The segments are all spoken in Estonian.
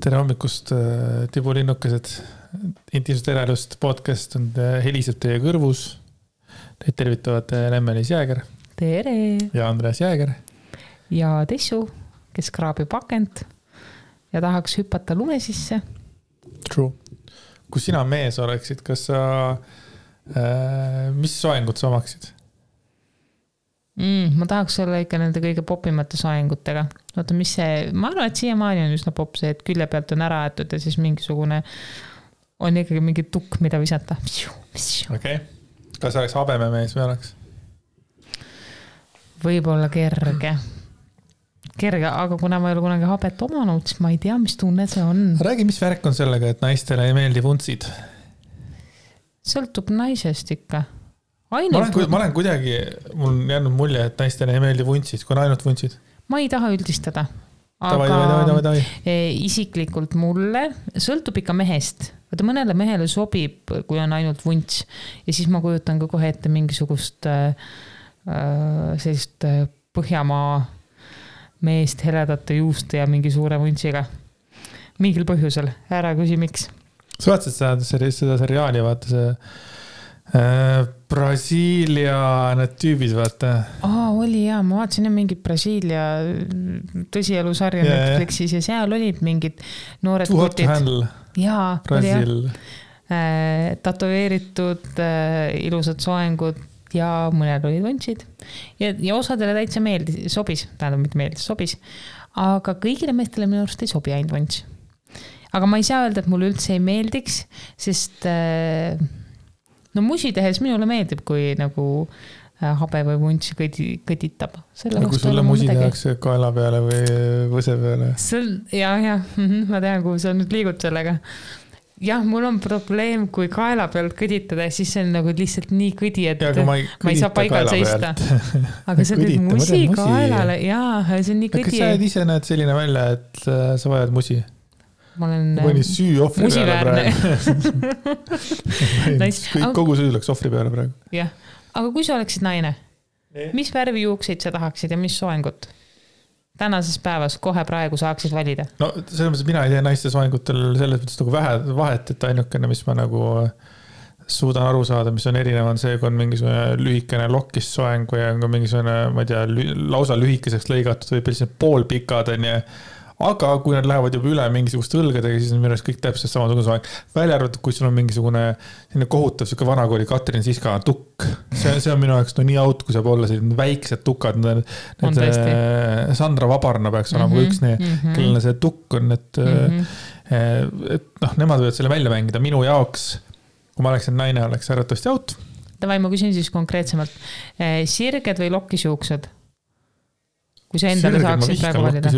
Tere hommikust, tibulinnukesed. Intiimsest eraelust podcast on heliseb teie kõrvus. Teid tervitavad Lemmelis Jääger. Tere! Ja Andreas Jääger. Ja Tessu, kes kraabib akent ja tahaks hüpata lume sisse. True. Kui sina mees oleksid, kas sa, mis soengut sa omaksid? Ma tahaks olla ikka nende kõige popimate soengutega. Oota, mis see, ma arvan, et siiamaani on üsna pop see, et külje pealt on ära aetud ja siis mingisugune on ikkagi mingi tukk, mida visata. Okei. Kas oleks habememees või oleks? Võib-olla kerge, aga kuna ma ei ole kunagi habet omanud, siis ma ei tea, mis tunne see on. Räägi, mis värk on sellega, et naistele ei meeldi vuntsid? Sõltub naisest ikka. Ma olen kuidagi, mul on jäänud mulje, et naistele ei meeldi vuntsid, kui on ainult vuntsid. Ma ei taha üldistada, aga isiklikult mulle sõltub ikka mehest. Vaata mõnele mehele sobib, kui on ainult vunts ja siis ma kujutan ka kohe ette mingisugust sellist Põhjamaa meest heledate juuste ja mingi suure vuntsiga. Mingil põhjusel, ära küsi miks. Sa vaatasid seda seriaali, vaata see Brasiilia need tüübid, vaata. Oli jah, ma vaatasin mingi Brasiilia tõsielusarja Netflixis ja seal olid mingid noored kutid. Jaa, Brasiil. Tatoveeritud ilusad soengud ja mõned olid vuntsid. Ja osadele täitsa sobis, sobis. Aga kõigile meestele minu arust ei sobi ainult vunts. Aga ma ei saa öelda, et mulle üldse ei meeldiks, sest musi tehes minule meeldib, kui nagu habe või vunts kõditab. Kui sulle musi tehakse kaela peale või võse peale? Ja, ma tean, kuhu sa nüüd liigud sellega. Jah, mul on probleem, kui kaela pealt kõditada, siis see on nagu lihtsalt nii kõdi, et ma ei saa paigal seista. Aga see teed musi kaelale, jaa, see on nii kõdi. Kas sa ise näed selline välja, et sa vajad musi? Ma olen süü ohvri peale praegu. Kogu süü läks ohvri peale praegu. Jah, aga kui sa oleksid naine, mis värvi juukseid sa tahaksid ja mis soengut? Tänases päevas kohe praegu saaksid valida. No selles mõttes, mina ei tee naiste soengutel selles mõttes nagu vahet, et ainukene, mis ma nagu suudan aru saada, mis on erinev, on see, kui on mingisugune lühikene lokkist soengu ja on mingisugune, ma ei tea, lausa lühikeseks lõigatud või sellised poolpikad on ja aga kui nad lähevad juba üle mingisugust õlgadega, siis on minu arust kõik täpselt samasugune soeng. Välja arvatud, kui sul on mingisugune kohutav siuke vanakooli Katrin Siska tukk. See on minu jaoks nii out, kui saab olla selline väiksed tukad. Need Sandra Vabarna peaks olema üks kellele see tukk on, et nemad võivad selle välja mängida. Minu jaoks, kui ma oleksin naine, oleks äratavasti out. Tavai, ma küsin siis konkreetsemalt. Sirged või lokkisjuuksed? Kui sa endale saaksid praegu valida?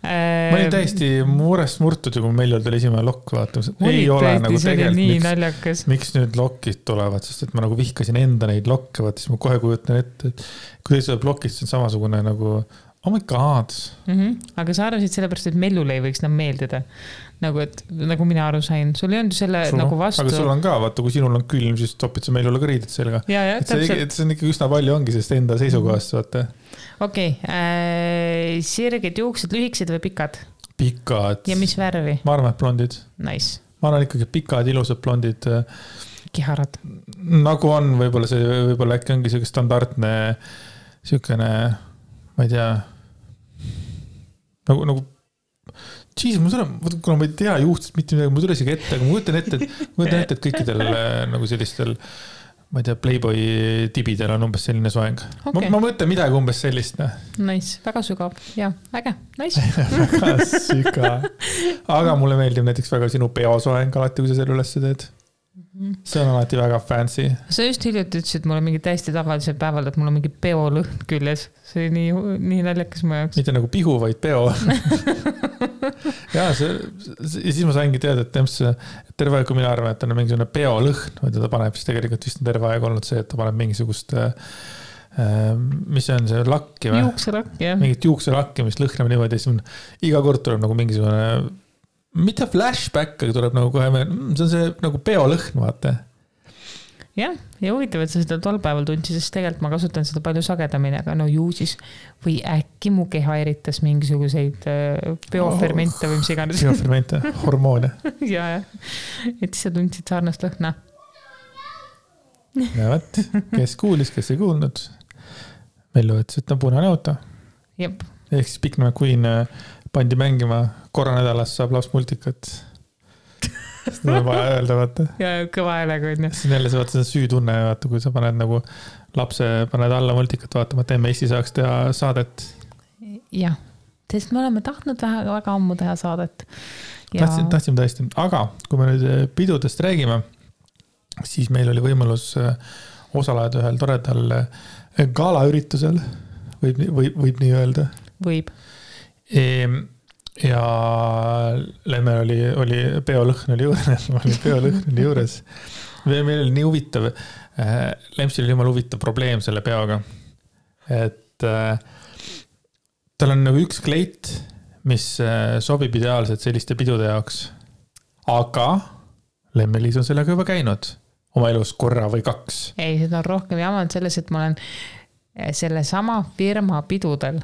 Ma olin täiesti murest murtud, kui meil oli esimene lokk vaatamas. Ei ole nagu tegelikult, miks nüüd lokkid tulevad, sest et ma nagu vihkasin enda neid lokke, vaata, siis ma kohe kujutan ette, et kui tuleb lokist, see on samasugune nagu oh my god. Aga sa arvasid sellepärast, et mellule ei võiks meeldida. Nagu mina aru sain. Sul ei olnud selle nagu vastu. Aga sul on ka, vaata, kui sinul on külm, siis topid sa mellule ka riided sellega. Et see on ikka üsna palju ongi, sest enda seisukohast, vaata. Okei, sirged juuksed, lühiksed või pikad? Pikad. Ja mis värvi? Ma arvan, et blondid. Nice. Ma arvan ikkagi pikad, ilusad blondid. Kiharad. Nagu on, võib-olla äkki ongi selline standardne selline, ma ei tea, nagu kuna ma ei tea juhtist mitte midagi, ma tule isegi ette, aga ma kujutan ette, et kõikidel nagu sellistel, ma ei tea, Playboy tibidel on umbes selline soeng. Okay. Ma mõtlen midagi umbes sellist. Nice, väga sügav. Ja, äge. Nice. Väga sügav. Aga mulle meeldib näiteks väga sinu peosoeng alati, kui sa selle üles teed. See on alati väga fancy. Sa just hiljuti ütlesid mulle mingi täiesti tavalisel päeval, et mul on mingi peolõhn küljes. See oli nii naljakas mu jaoks. Mitte nagu pihu, vaid peo. Ja siis ma saingi teada, et terve aeg, kui mina arvan, et ta on mingisugune peolõhn, või ta paneb, siis tegelikult vist on terve aeg olnud see, et ta paneb mingisugust mis see on see lakki või? Juukselakk, jah. Mingit juukselakki, mis lõhnab niimoodi, siis iga kord tuleb nagu mingisugune mitte flashback, aga tuleb nagu kohe see on see nagu peolõhn, vaata. jah, ja huvitav, et sa seda tol päeval tundsid, sest tegelikult ma kasutan seda palju sagedamini, aga no ju siis või äkki mu keha eritas mingisuguseid biofermente või mis iganes. Biofermente, hormoone. ja, et siis sa tundsid sarnast lõhna. Ja võt, kes kuulis, kes ei kuulnud, Mellu ütles, et on punane auto. Jep. Ehk siis Pikname Queen pandi mängima korra nädalas saab laps multikat. Seda on vaja öelda, vaata. Ja kõva häälega on. Siis jälle see vaata see süütunne, vaata, kui sa paned nagu lapse, paned alla multikat vaatama, et emme Eesti saaks teha saadet. Jah, sest me oleme tahtnud väga ammu teha saadet. Ja... Tahtsime tõesti. Aga kui me nüüd pidudest räägime, siis meil oli võimalus osaleda ühel toredal galaüritusel, võib nii öelda. Võib. Ja Lemmel oli peolõhn oli juures. Meil oli nii huvitav, Lempsil oli jumala huvitav probleem selle peoga. Et tal on nagu üks kleit, mis sobib ideaalselt selliste pidude jaoks. Aga Lemmelis on sellega juba käinud oma elus korra või 2. Ei, seda on rohkem jamanud selles, et ma olen selle sama firma pidudel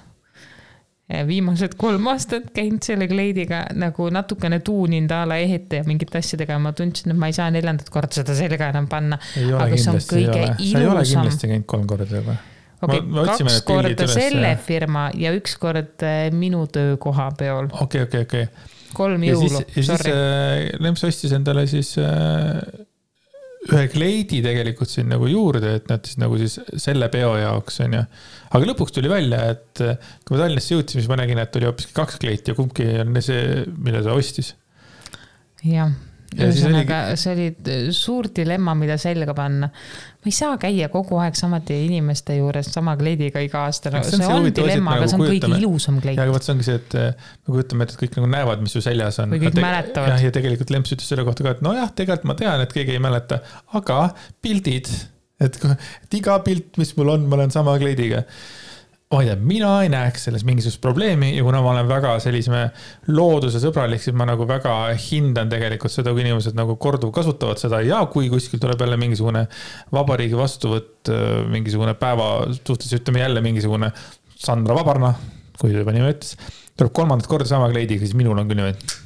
viimased 3 aastat käinud selle kleidiga nagu natukene tuuninud ala ehete ja mingit asjadega ja ma tundsin, et ma ei saa 4. kord seda selga enam panna. Aga see on kõige ilusam. Sa ei ole kindlasti käinud 3 korda juba. Okay, 2 korda selle firma ja 1 kord minu töökoha peol. Okei. 3 jõulu, sorry. Lemps ostis endale siis ühe kleidi tegelikult siin nagu juurde, et nad siis nagu siis selle peo jaoks on ja. Aga lõpuks tuli välja, et kui ma Tallinnasse jõudsin, siis ma nägin, et oli hoopiski 2 kleiti ja kumbki on see, mille ta ostis. Jah. Ühesõnaga, see oli suur dilemma, mida selga panna. Ma ei saa käia kogu aeg samade inimeste juures sama kleidiga iga aasta. See on dilemma, aga see on kõige ilusam kleit. Ja aga võt see ongi see, et me kujutame, et kõik nagu näevad, mis su seljas on. Või kõik mäletavad. Ja tegelikult Lemps ütles selle kohta ka, et no jah, tegelikult ma tean, et keegi ei mäleta, aga pildid, et iga pilt, mis mul on, ma olen sama kleidiga. Ma ei tea, mina ei näeks selles mingisugust probleemi ja kuna ma olen väga selliseme looduse sõbralik, siis ma nagu väga hindan tegelikult seda, kui inimesed nagu korduv kasutavad seda ja kui kuskil tuleb jälle mingisugune vabariigi vastuvõtt, mingisugune päeva suhtes, ütleme jälle mingisugune Sandra Vabarna, kui ta juba nime ütles, tuleb 3. korda sama kleidiga, siis minul on küll niimoodi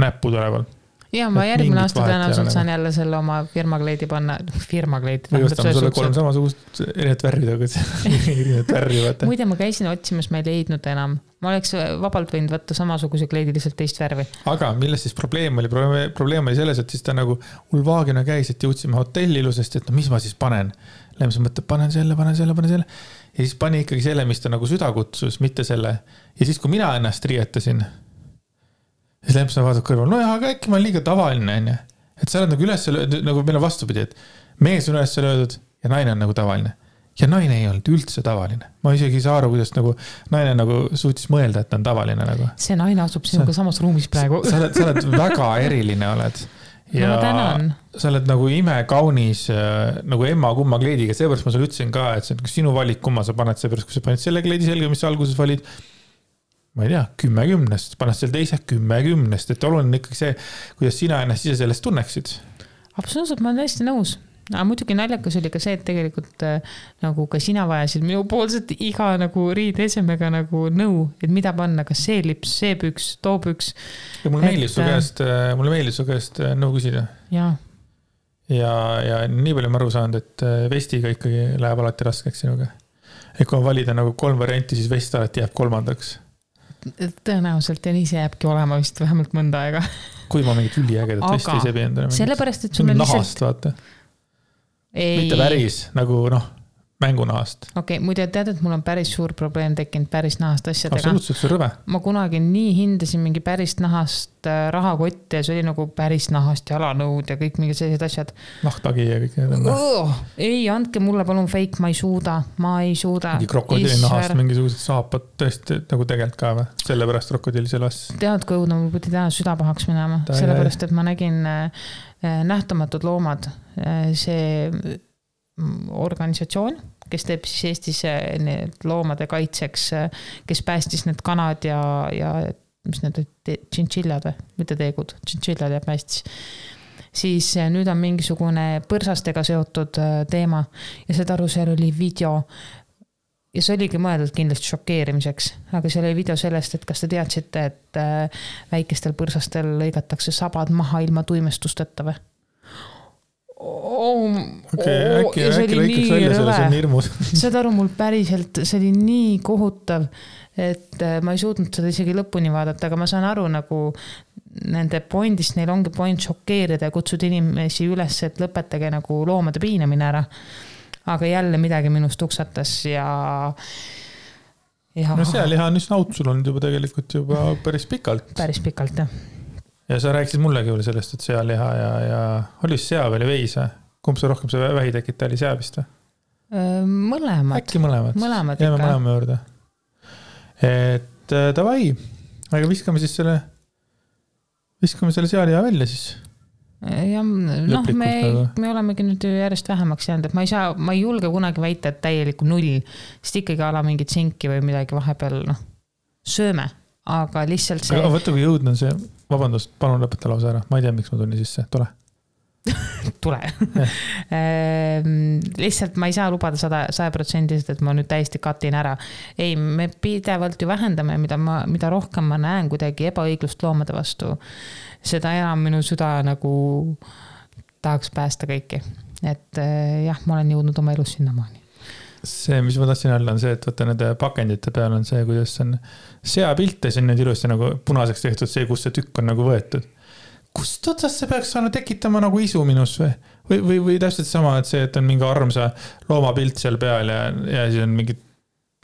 näppu tuleval. Ja ma järgmine aasta tõenäoliselt saan jälle selle oma firmakleidi panna. Firmakleidi. Või ostame sulle 3 samasugust erinevat värvi. Muide, ma käisin otsimas, ma ei leidnud enam. Ma oleks vabalt võinud võtta samasuguse kleidi lihtsalt teist värvi. Aga milles siis probleem oli? Probleem oli selles, et siis ta nagu ulvaagina käis, et jõudsime hotelli ilusest, et no mis ma siis panen? Lemps mõtleb, panen selle. Ja siis pani ikkagi selle, mis ta nagu süda kutsus, mitte selle. Ja siis, kui mina ennast riietasin, siis Lemps on vaatab kõrval, no jah, aga äkki ma olen liiga tavaline, on. Et sa oled nagu üles löödud, nagu meil on vastupidi, et mees on üles löödud ja naine on nagu tavaline. Ja naine ei olnud üldse tavaline. Ma isegi ei saa aru, kuidas nagu naine nagu suutis mõelda, et ta on tavaline. Nagu. See naine asub sinuga samas ruumis praegu. Sa oled väga eriline oled. Ja sa oled nagu imekaunis nagu emma kumma kleidiga. Seepärast ma sulle ütlesin ka, et see on sinu valik, kumma sa paned seepärast, kui sa paned selle kleidi selga, mis sa alguses valid. Ma ei tea, 10-10, paned selle teise 10-10, et oluline ikkagi see, kuidas sina ennast ise sellest tunneksid. Absoluutselt, ma olen täiesti nõus. Aga muidugi naljakas oli ka see, et tegelikult nagu ka sina vajasid minu poolset iga nagu riideesemega nagu nõu, et mida panna, kas see lips, see püks, too püks. Ja mulle meeldis su käest nõu küsida. Ja nii palju ma aru saanud, et vestiga ikkagi läheb alati raskeks sinuga. Et kui on valida nagu 3 varianti, siis vest alati jääb 3. Tõenäoliselt ja nii see jääbki olema vist vähemalt mõnda aega. Kui ma mingit üliägedat vesti ei sebi endale. Sellepärast, et sul on nahast, vaata. Mitte päris, nagu mängunahast. Okei, muide tead, et mul on päris suur probleem tekkinud päris nahast asjadega. Absoluutselt, see on rõve. Ma kunagi nii hindasin mingi päris nahast rahakotti ja see oli nagu päris nahast jalanõud ja kõik mingid sellised asjad. Nahtagi ja kõik need on. Ei, andke mulle palun fake, ma ei suuda. Mingi krokodilli nahast mingisugused saapad tõesti nagu tegelikult ka või? Sellepärast krokodilli selles. Tead, kui õudne, ma pidi täna süda pahaks minema. Sellepärast, et ma nägin nähtamatud loomad. See organisatsioon, kes teeb siis Eestis need loomade kaitseks, kes päästis need kanad ja mis need tšintšillad või? Mitte teegud, tšintšillad ja päästis. siis nüüd on mingisugune põrsastega seotud teema ja saad aru, seal oli video ja see oligi mõeldud kindlasti šokeerimiseks, aga seal oli video sellest, et kas te teadsite, et väikestel põrsastel lõigatakse sabad maha ilma tuimestusteta või? Äkki lõikaks välja selle, see on hirmus. Saad aru, mul päriselt, see oli nii kohutav, et ma ei suutnud seda isegi lõpuni vaadata, aga ma saan aru nagu nende pointist, neil ongi point šokeerida ja kutsuda inimesi üles, et lõpetage nagu loomade piinamine ära. Aga jälle midagi minust tuksatas ja... No sealiha on üsna aut sul olnud juba tegelikult juba päris pikalt. Päris pikalt, jah. Ja sa rääkisid mullegi veel sellest, et sealiha ja oli sea või veis? Kumb see rohkem see vähitekita oli, sea vist? Mõlemad. Äkki mõlemad. Jääme mõlema juurde. Et davai, aga viskame selle sealiha välja siis. Ja, noh, me olemegi nüüd järjest vähemaks jäänud, et ma ei julge kunagi väita, et täielikku 0, sest ikkagi ala mingit sinki või midagi vahepeal, noh, sööme, aga lihtsalt see... Aga võtta, kui jõudnud on see, vabandust, palun lõpeta lausa ära, ma ei tea, miks ma tulin sisse, tule. Tule. Lihtsalt ma ei saa lubada 100%, et ma nüüd täiesti katin ära. Ei, me pidevalt ju vähendame, mida rohkem ma näen kuidagi ebaõiglust loomade vastu, seda enam minu süda nagu tahaks päästa kõiki. Et jah, ma olen jõudnud oma elus sinnamaani. See, mis ma tahtsin öelda, on see, et võtta nende pakendite peal on see, kuidas on seapilt ja see on nüüd ilusti nagu punaseks tehtud see, kus see tükk on nagu võetud. Kust otsast see peaks saanud tekitama nagu isu minus või täpselt sama, et see, et on mingi armsa loomapilt seal peal ja siis on mingi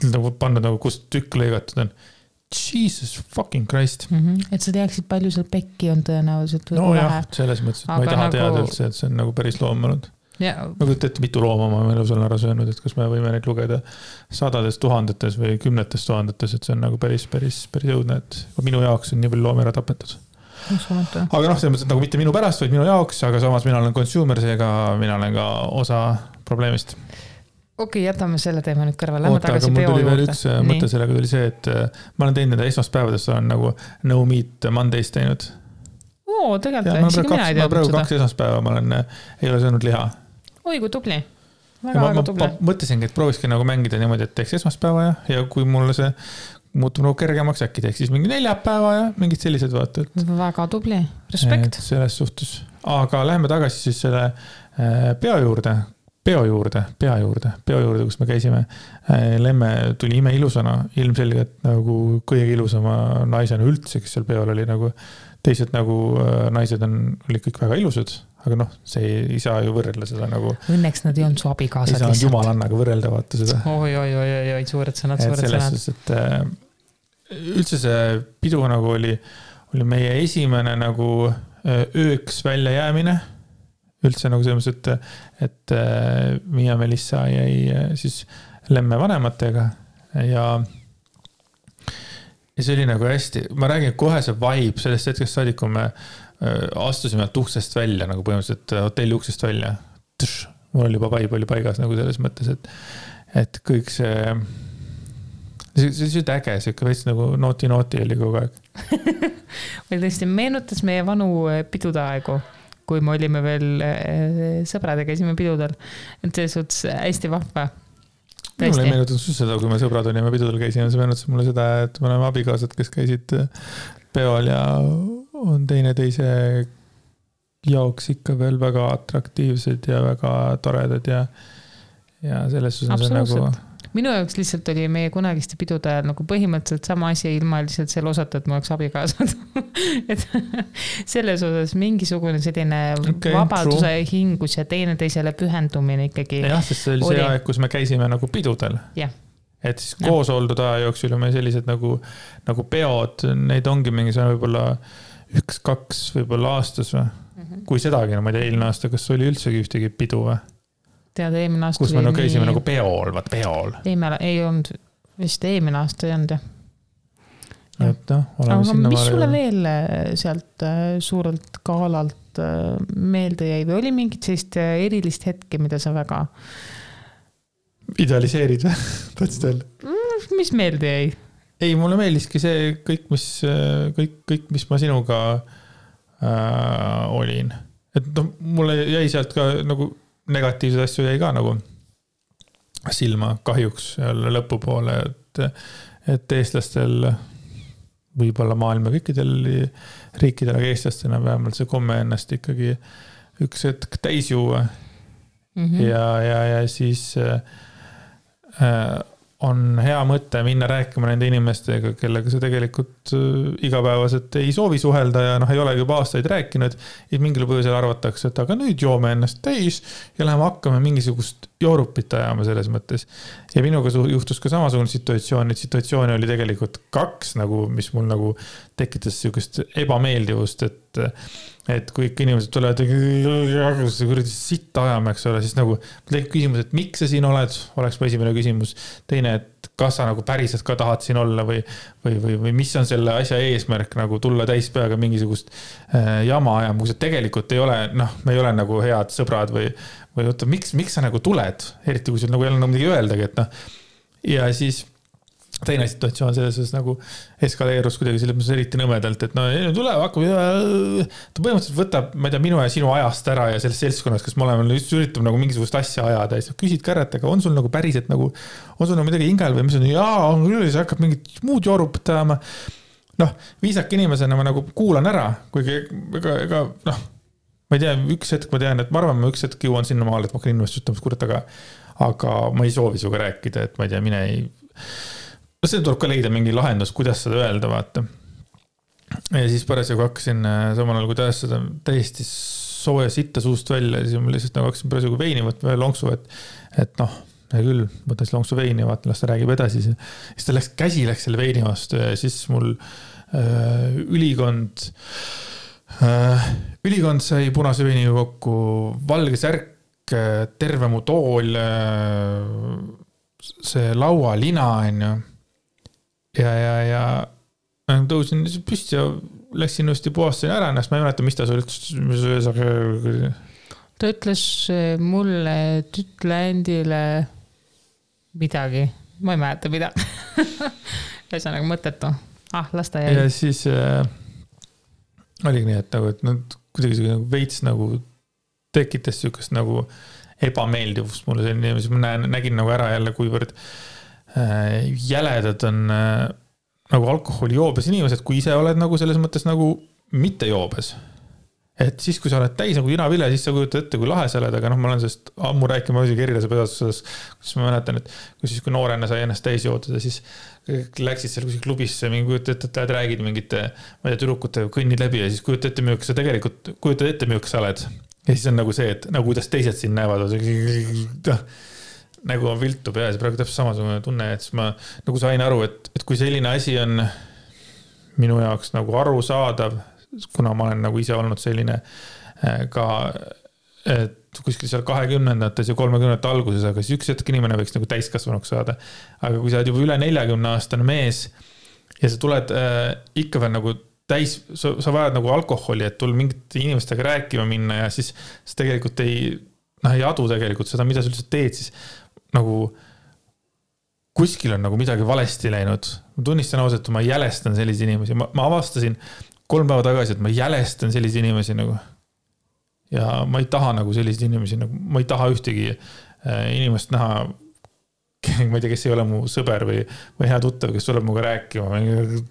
nagu pannud nagu kust tükk lõigatud on. Jesus fucking Christ. Et sa teaksid, palju seal pekki on tõenäoliselt. No jah, selles mõttes, et ma ei taha teada üldse, et see on nagu päris loom olnud. Ma kujutan, mitu looma ma elus olen ära söönud, et kas me võime neid lugeda sadades tuhandetes või kümnetes tuhandetes, et see on nagu päris jõudne, et minu jaoks on nii palju loomi ära tapetud. Aga noh, selles mõttes, et nagu mitte minu pärast, vaid minu jaoks, aga samas mina olen consumer, seega mina olen ka osa probleemist. Okei, jätame selle teema nüüd kõrval. Oota, aga mul tuli veel üks mõte sellega tuli see, et ma olen teinud nende esmaspäevadest, olen nagu no meat Mondays teinud. Tegelikult, isegi mina ei teadnud seda. Ma praegu 2 esmaspäeva ei ole söönud liha. Oi, kui tubli. Väga tubli. Ma mõtlesingi, et prooviski nagu mängida niimoodi, et teeks esmaspäeva ja kui mulle see muutub nagu kergemaks, äkki teeks siis mingi 4 päeva ja mingid sellised vaated. Väga tubli. Respekt. Selles suhtes. Aga läheme tagasi siis selle peo juurde, kus me käisime. Lemme tuli ime ilusana, ilmselgelt nagu kõige ilusama naisena üldse, kes seal peol oli nagu teised nagu naised olid kõik väga ilusad, aga noh, see ei saa ju võrrelda seda nagu... Õnneks nad ei olnud su abikaasad lihtsalt. Ei saa jumalannaga võrrelda, vaata seda. Oi, suured sõnad. Selles suhtes, et üldse see pidu nagu oli meie esimene nagu ööks välja jäämine. Üldse nagu selles mõttes, et Miia Melissa jäi siis Lemme vanematega ja see oli nagu hästi, ma räägin kohe see vibe sellest hetkest saadik, kui me astusime uksest välja, nagu põhimõtteliselt hotelli uksest välja. Mul oli juba vibe oli paigas nagu selles mõttes, et kõik see äge, see veits nagu nooti oli kogu aeg. Või tõesti meenutas meie vanu pidude aegu, kui me olime veel sõbrad ja käisime pidudel. Et see suhtes hästi vahva. Mulle ei meenutud seda, kui me sõbrad olime pidudel käisime, see meenutas mulle seda, et me oleme abikaasad, kes käisid peol ja on teise jaoks ikka veel väga atraktiivsed ja väga toredad ja selles suhtes on nagu... Minu jaoks lihtsalt oli meie kunagiste pidude ajal nagu põhimõtteliselt sama asi ilma lihtsalt selle osata, et ma oleks abikaasad. Et selles osas mingisugune selline vabaduse hingus ja teisele pühendumine ikkagi. Jah, sest see oli see aeg, kus me käisime nagu pidudel. Ja. Et siis koos oldud aja jooksul me sellised nagu peod, neid ongi mingisugune võib-olla 1-2 võib-olla aastas või? Kui sedagi, ma ei tea, eelmine aasta, kas oli üldsegi ühtegi pidu või? Tead, eelmine aasta kus me nagu käisime nagu peol. Ei olnud, vist eelmine aasta ei olnud, jah. Et no, oleme aga sinna mis sulle veel sealt suurelt kaalalt meelde jäi või oli mingit sellist erilist hetke, mida sa väga idealiseerid või? Tahtsid öelda? Mis meelde jäi? Ei, mulle meeldiski see kõik, mis ma sinuga olin. et noh, mulle jäi sealt ka nagu negatiivseid asju jäi ka nagu silma kahjuks lõpupoole, et eestlastel võib-olla maailma kõikidel riikidel, aga eestlastena vähemalt see komme ennast ikkagi üks hetk täis juua. Ja siis on hea mõte minna rääkima nende inimestega, kellega sa tegelikult igapäevaselt ei soovi suhelda ja ei olegi juba aastaid rääkinud. Ja mingil põhjusel arvatakse, et aga nüüd joome ennast täis ja läheme hakkame mingisugust joorupit ajama selles mõttes. Ja minuga juhtus ka samasugune situatsioon, et situatsiooni oli tegelikult 2, nagu, mis mul nagu tekitas sellist ebameeldivust, et kui ikka inimesed tulevad kuradi sitta ajama, eks ole, siis nagu tekib küsimus, et miks sa siin oled, oleks mu esimene küsimus. Teine, et kas sa nagu päriselt ka tahad siin olla või mis on selle asja eesmärk nagu tulla täispeaga mingisugust jama ajama, kui sa tegelikult ei ole, me ei ole nagu head sõbrad või oota, miks sa nagu tuled, eriti kui sul nagu ei ole midagi öeldagi, et ja siis teine situatsioon selles nagu eskaleerus kuidagi selles mõttes eriti nõmedalt, et tuleb, hakkab, ta põhimõtteliselt võtab, ma ei tea, minu ja sinu ajast ära ja selles seltskonnas, kas me oleme just üritab nagu mingisugust asja ajada ja siis küsid kärret, aga on sul nagu päriselt nagu, on sul nagu midagi hingel või mis on, jaa, on küll, siis hakkab mingit muud joorupit ajama. Viisak inimesena ma nagu kuulan ära, kuigi ega, ma ei tea, üks hetk ma tean, et ma arvan, ma üks hetk jõuan sinna maal, et ma hakkan inimest ütlema, kurat, aga ma ei soovi suga rääkida, et ma ei tea, mine ei see tuleb ka leida mingi lahendus, kuidas seda öelda, vaata. Ja siis parasjagu hakkasin samal ajal, kui tajas seda täiesti sooja sitta suust välja, siis ma lihtsalt nagu hakkasin parasjagu veini võtma ja lonksu, et hea küll, võtan siis lonksu veini ja vaatan, las ta räägib edasi. Siis ta käsi läks selle veini vastu ja siis mul ülikond sai punase veiniga kokku, valge särk, terve mu tool, see laualina on ju. Ja tõusin püsti ja läksin uuesti puhastasin ära ennast, ma ei mäleta, mis ta sul ta ütles mulle, et ütle endile midagi, ma ei mäleta mida. Ühesõnaga mõttetu. Las ta jäi. Ja siis oligi nii, et kuidagi veits nagu tekitas sükast nagu ebameeldivust mulle selline, siis ma nägin nagu ära jälle, kuivõrd jäledad on nagu alkoholijoobes inimesed, kui ise oled nagu selles mõttes nagu mitte joobes. Et siis, kui sa oled täis nagu inavile, siis sa kujutad ette, kui lahe sa oled, aga ma olen sellest ammu rääkima isegi erilase pedasuses, kus ma mäletan, et kui noorena sai ennast täis jootada, siis läksid seal kuskil klubisse, mingi kujutad ette, et räägid mingite, ma ei tea, tüdrukute kõnnid läbi ja siis kujutad ette müük, sa tegelikult kujutad ette müük sa oled. Ja siis on nagu see, et nagu kuidas teised siin näevad, nagu on viltu peas ja praegu täpselt samasugune tunne, et ma nagu sain aru, et kui selline asi on minu jaoks nagu arusaadav, kuna ma olen nagu ise olnud selline ka, et kuskil seal 20-ndates ja 30-ndate alguses, aga siis üks hetk inimene võiks nagu täiskasvanuks saada. Aga kui sa oled juba üle 40-aastane mees ja sa tuled ikka veel nagu täis, sa vajad nagu alkoholi, et tul mingite inimestega rääkima minna ja siis tegelikult ei adu tegelikult seda, mida sa üldse teed, siis nagu kuskil on nagu midagi valesti läinud. Ma tunnistan ausalt, et ma jälestan sellise inimesi. Ma avastasin 3 päeva tagasi, et ma jälestan sellise inimesi nagu. Ja ma ei taha nagu sellise inimesi, nagu, ma ei taha ühtegi inimest näha, ma ei tea, kes ei ole mu sõber või hea tuttav, kes tuleb muga rääkima,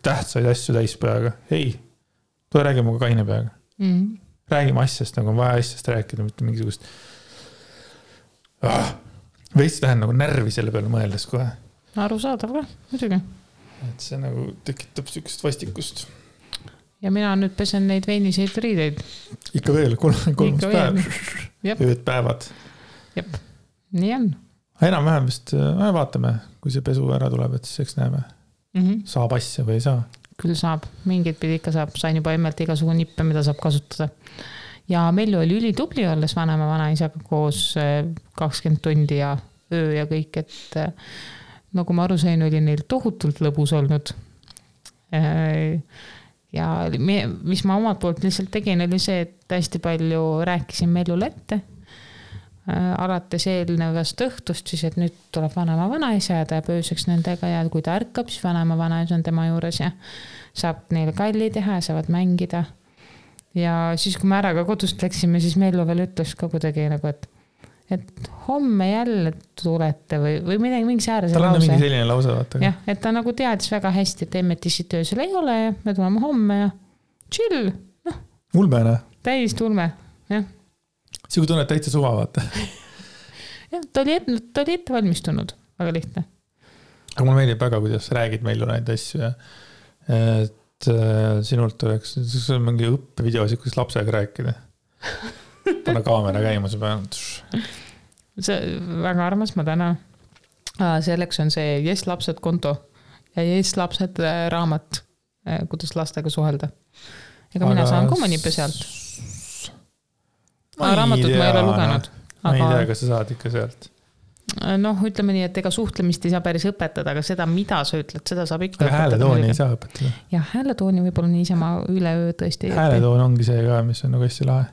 tähtsaid asju täispeaga. Ei, tule räägi muga kaine peaga. Räägime asjast, nagu on vaja asjast rääkida, mitte mingisugust veits lähen nagu närvi selle peale mõeldes kohe. Arusaadav ka, muidugi. Et see nagu tekitab sükest vastikust. Ja mina nüüd pesen neid veiniseid riideid. Ikka veel, 3 päev. Ööd päevad. Jep, nii on. Enam-vähem vist vaatame, kui see pesu ära tuleb, et siis eks näeme. Saab asja või ei saa? Küll saab, mingid pidi ikka saab. Sain juba emmelt igasugu nippe, mida saab kasutada. Ja Mellu oli ülitubli olles vanema vanaisaga koos 20 tundi ja öö ja kõik, et nagu ma aru sain, oli neil tohutult lõbus olnud. Ja mis ma omalt poolt lihtsalt tegin, oli see, et hästi palju rääkisin Mellule ette. Alates eelnevast õhtust siis, et nüüd tuleb vanema vanaisa ja ta jääb ööseks nendega ja kui ta ärkab, siis vanema vanaisa on tema juures ja saab neile kalli teha ja saavad mängida. ja siis, kui me ära ka kodust läksime, siis Mellu veel ütles ka kuidagi nagu, et homme jälle tulete või midagi, mingi säärase lause. Tal on mingi selline lause, vaata. Jah, et ta nagu teadis väga hästi, et Emmetissi töösel ei ole ja me tuleme homme ja chill. No, ulmene. Täiesti ulme, jah. See kui tunned täitsa suva, vaata. Jah, ta oli ette valmistunud, väga lihtne. Aga mulle meeldib väga, kuidas räägid Mellu neid asju ja et sinult oleks, see on mingi õppevideosid, kuidas lapsega rääkida. Pane kaamera käima, see peab. See väga armas, ma tänan. Selleks on see Yes lapsed konto ja Yes lapsed raamat, kuidas lastega suhelda. Ega mina saan ka mõnipe sealt. Raamatut ma ei ole lugenud. Ma ei tea, kas sa saad ikka sealt. Noh, ütleme nii, et ega suhtlemist ei saa päris õpetada, aga seda, mida sa ütled, seda saab ikka õpetada. Aga hääletooni ei saa õpetada. Jah, hääletooni võib-olla niisama üleöö tõesti. Hääletoon ongi see ka, mis on nagu hästi lahe.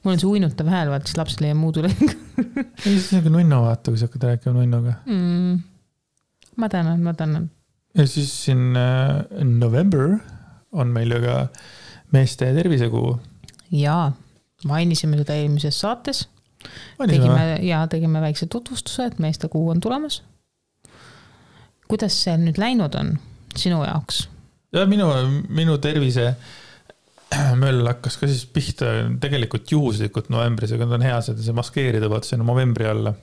Mul on see uinutav hääl, vaat siis lapsele ja muud üle. Ei, see on nagu nunno, vaata, kui sa hakkad rääkima nunnoga. Ma tänan. Ja siis siin November on meil ju ka meeste tervisekuu. Jaa, mainisime seda eelmises saates. Tegime väikse tutvustuse, et meeste kuu on tulemas. Kuidas see nüüd läinud on sinu jaoks? Ja minu tervise möll hakkas ka siis pihta tegelikult juhuslikult novembris, aga on hea seda see maskeerida, vaata see on novembri alla.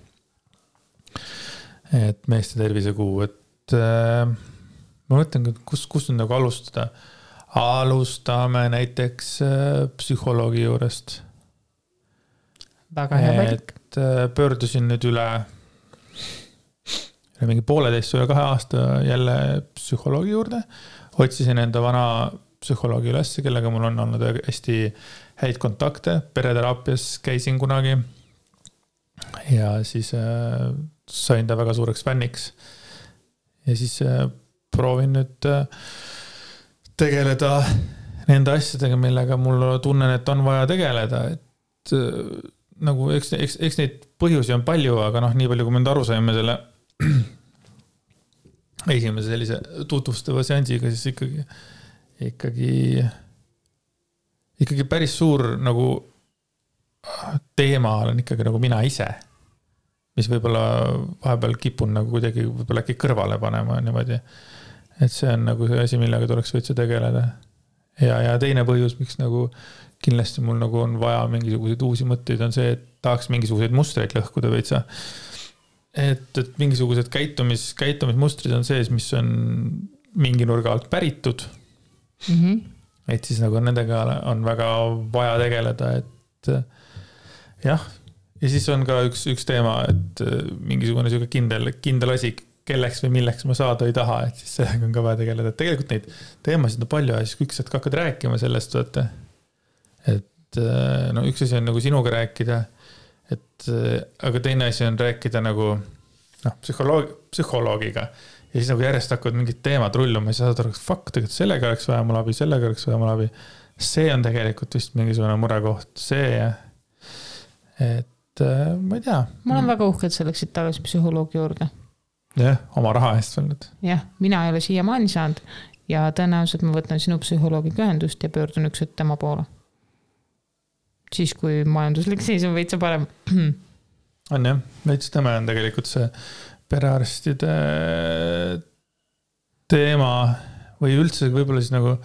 Et meeste tervisekuu, et ma mõtlen, kus nüüd nagu alustada. Alustame näiteks psühholoogi juurest. Väga hea valik. Et pöördusin nüüd üle mingi 1,5 üle 2 aasta jälle psühholoogi juurde. Otsisin enda vana psühholoogi üles, kellega mul on olnud hästi häid kontakte. Pereteraapias käisin kunagi ja siis sain ta väga suureks fänniks. Ja siis proovin nüüd tegeleda nende asjadega, millega mul tunnen, et on vaja tegeleda. Et nagu, eks neid põhjusi on palju, aga nii palju, kui me nüüd aru saime selle esimese sellise tutvustava seansiga, siis ikkagi päris suur nagu teema olen ikkagi nagu mina ise, mis võib-olla vahepeal kipun nagu kuidagi võib-olla äkki kõrvale panema niimoodi. Et see on nagu see asi, millega tuleks võitsa tegeleda. Ja teine põhjus, miks nagu kindlasti mul nagu on vaja mingisuguseid uusi mõtteid, on see, et tahaks mingisuguseid mustreid lõhkuda veitsa. Et mingisugused käitumismustrid on sees, mis on mingi nurga alt päritud. Et siis nagu nendega on väga vaja tegeleda, et jah. Ja siis on ka üks teema, et mingisugune kindel asi, kelleks või milleks ma saada ei taha, et siis sellega on ka vaja tegeleda. Et tegelikult neid teemasid on palju ja siis kui üks hakkad rääkima sellest, et üks asi on nagu sinuga rääkida, aga teine asi on rääkida nagu psühholoogiga ja siis nagu järjest hakkavad mingid teemad rulluma ja siis saad aru, tegelikult sellega oleks vaja mul abi, sellega oleks vaja mul abi. See on tegelikult vist mingisugune murekoht, see et ma ei tea. Ma olen väga uhke, et sa läksid tagasi psühholoogi juurde. Jah, oma raha eest veel nüüd. Jah, mina ei ole siiamaani saanud ja tõenäoliselt ma võtan sinu psühholoogiga ühendust ja pöördun üks tema poole. Siis, kui majanduslik seis on veitsa parem. On jah, veits tema on tegelikult see perearstide teema või üldse võib-olla siis nagu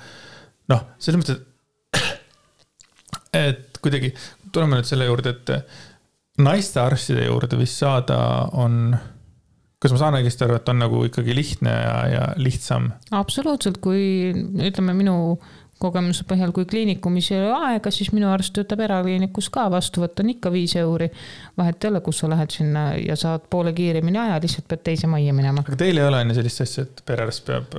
selles mõttes, et kuidagi tuleme nüüd selle juurde, et naiste arstide juurde vist saada on, kas ma saan õigesti aru, et on nagu ikkagi lihtne ja lihtsam? Absoluutselt, kui ütleme minu kogemuse põhjal, kui kliinikumis ei ole aega, siis minu arst töötab erakliinikus ka, vastu võtta on ikka 5 €. Vahet ei ole, kus sa lähed sinna ja saad poole kiiremini aja, lihtsalt pead teise majja minema. Aga teil ei ole enne sellist asja, et perearst peab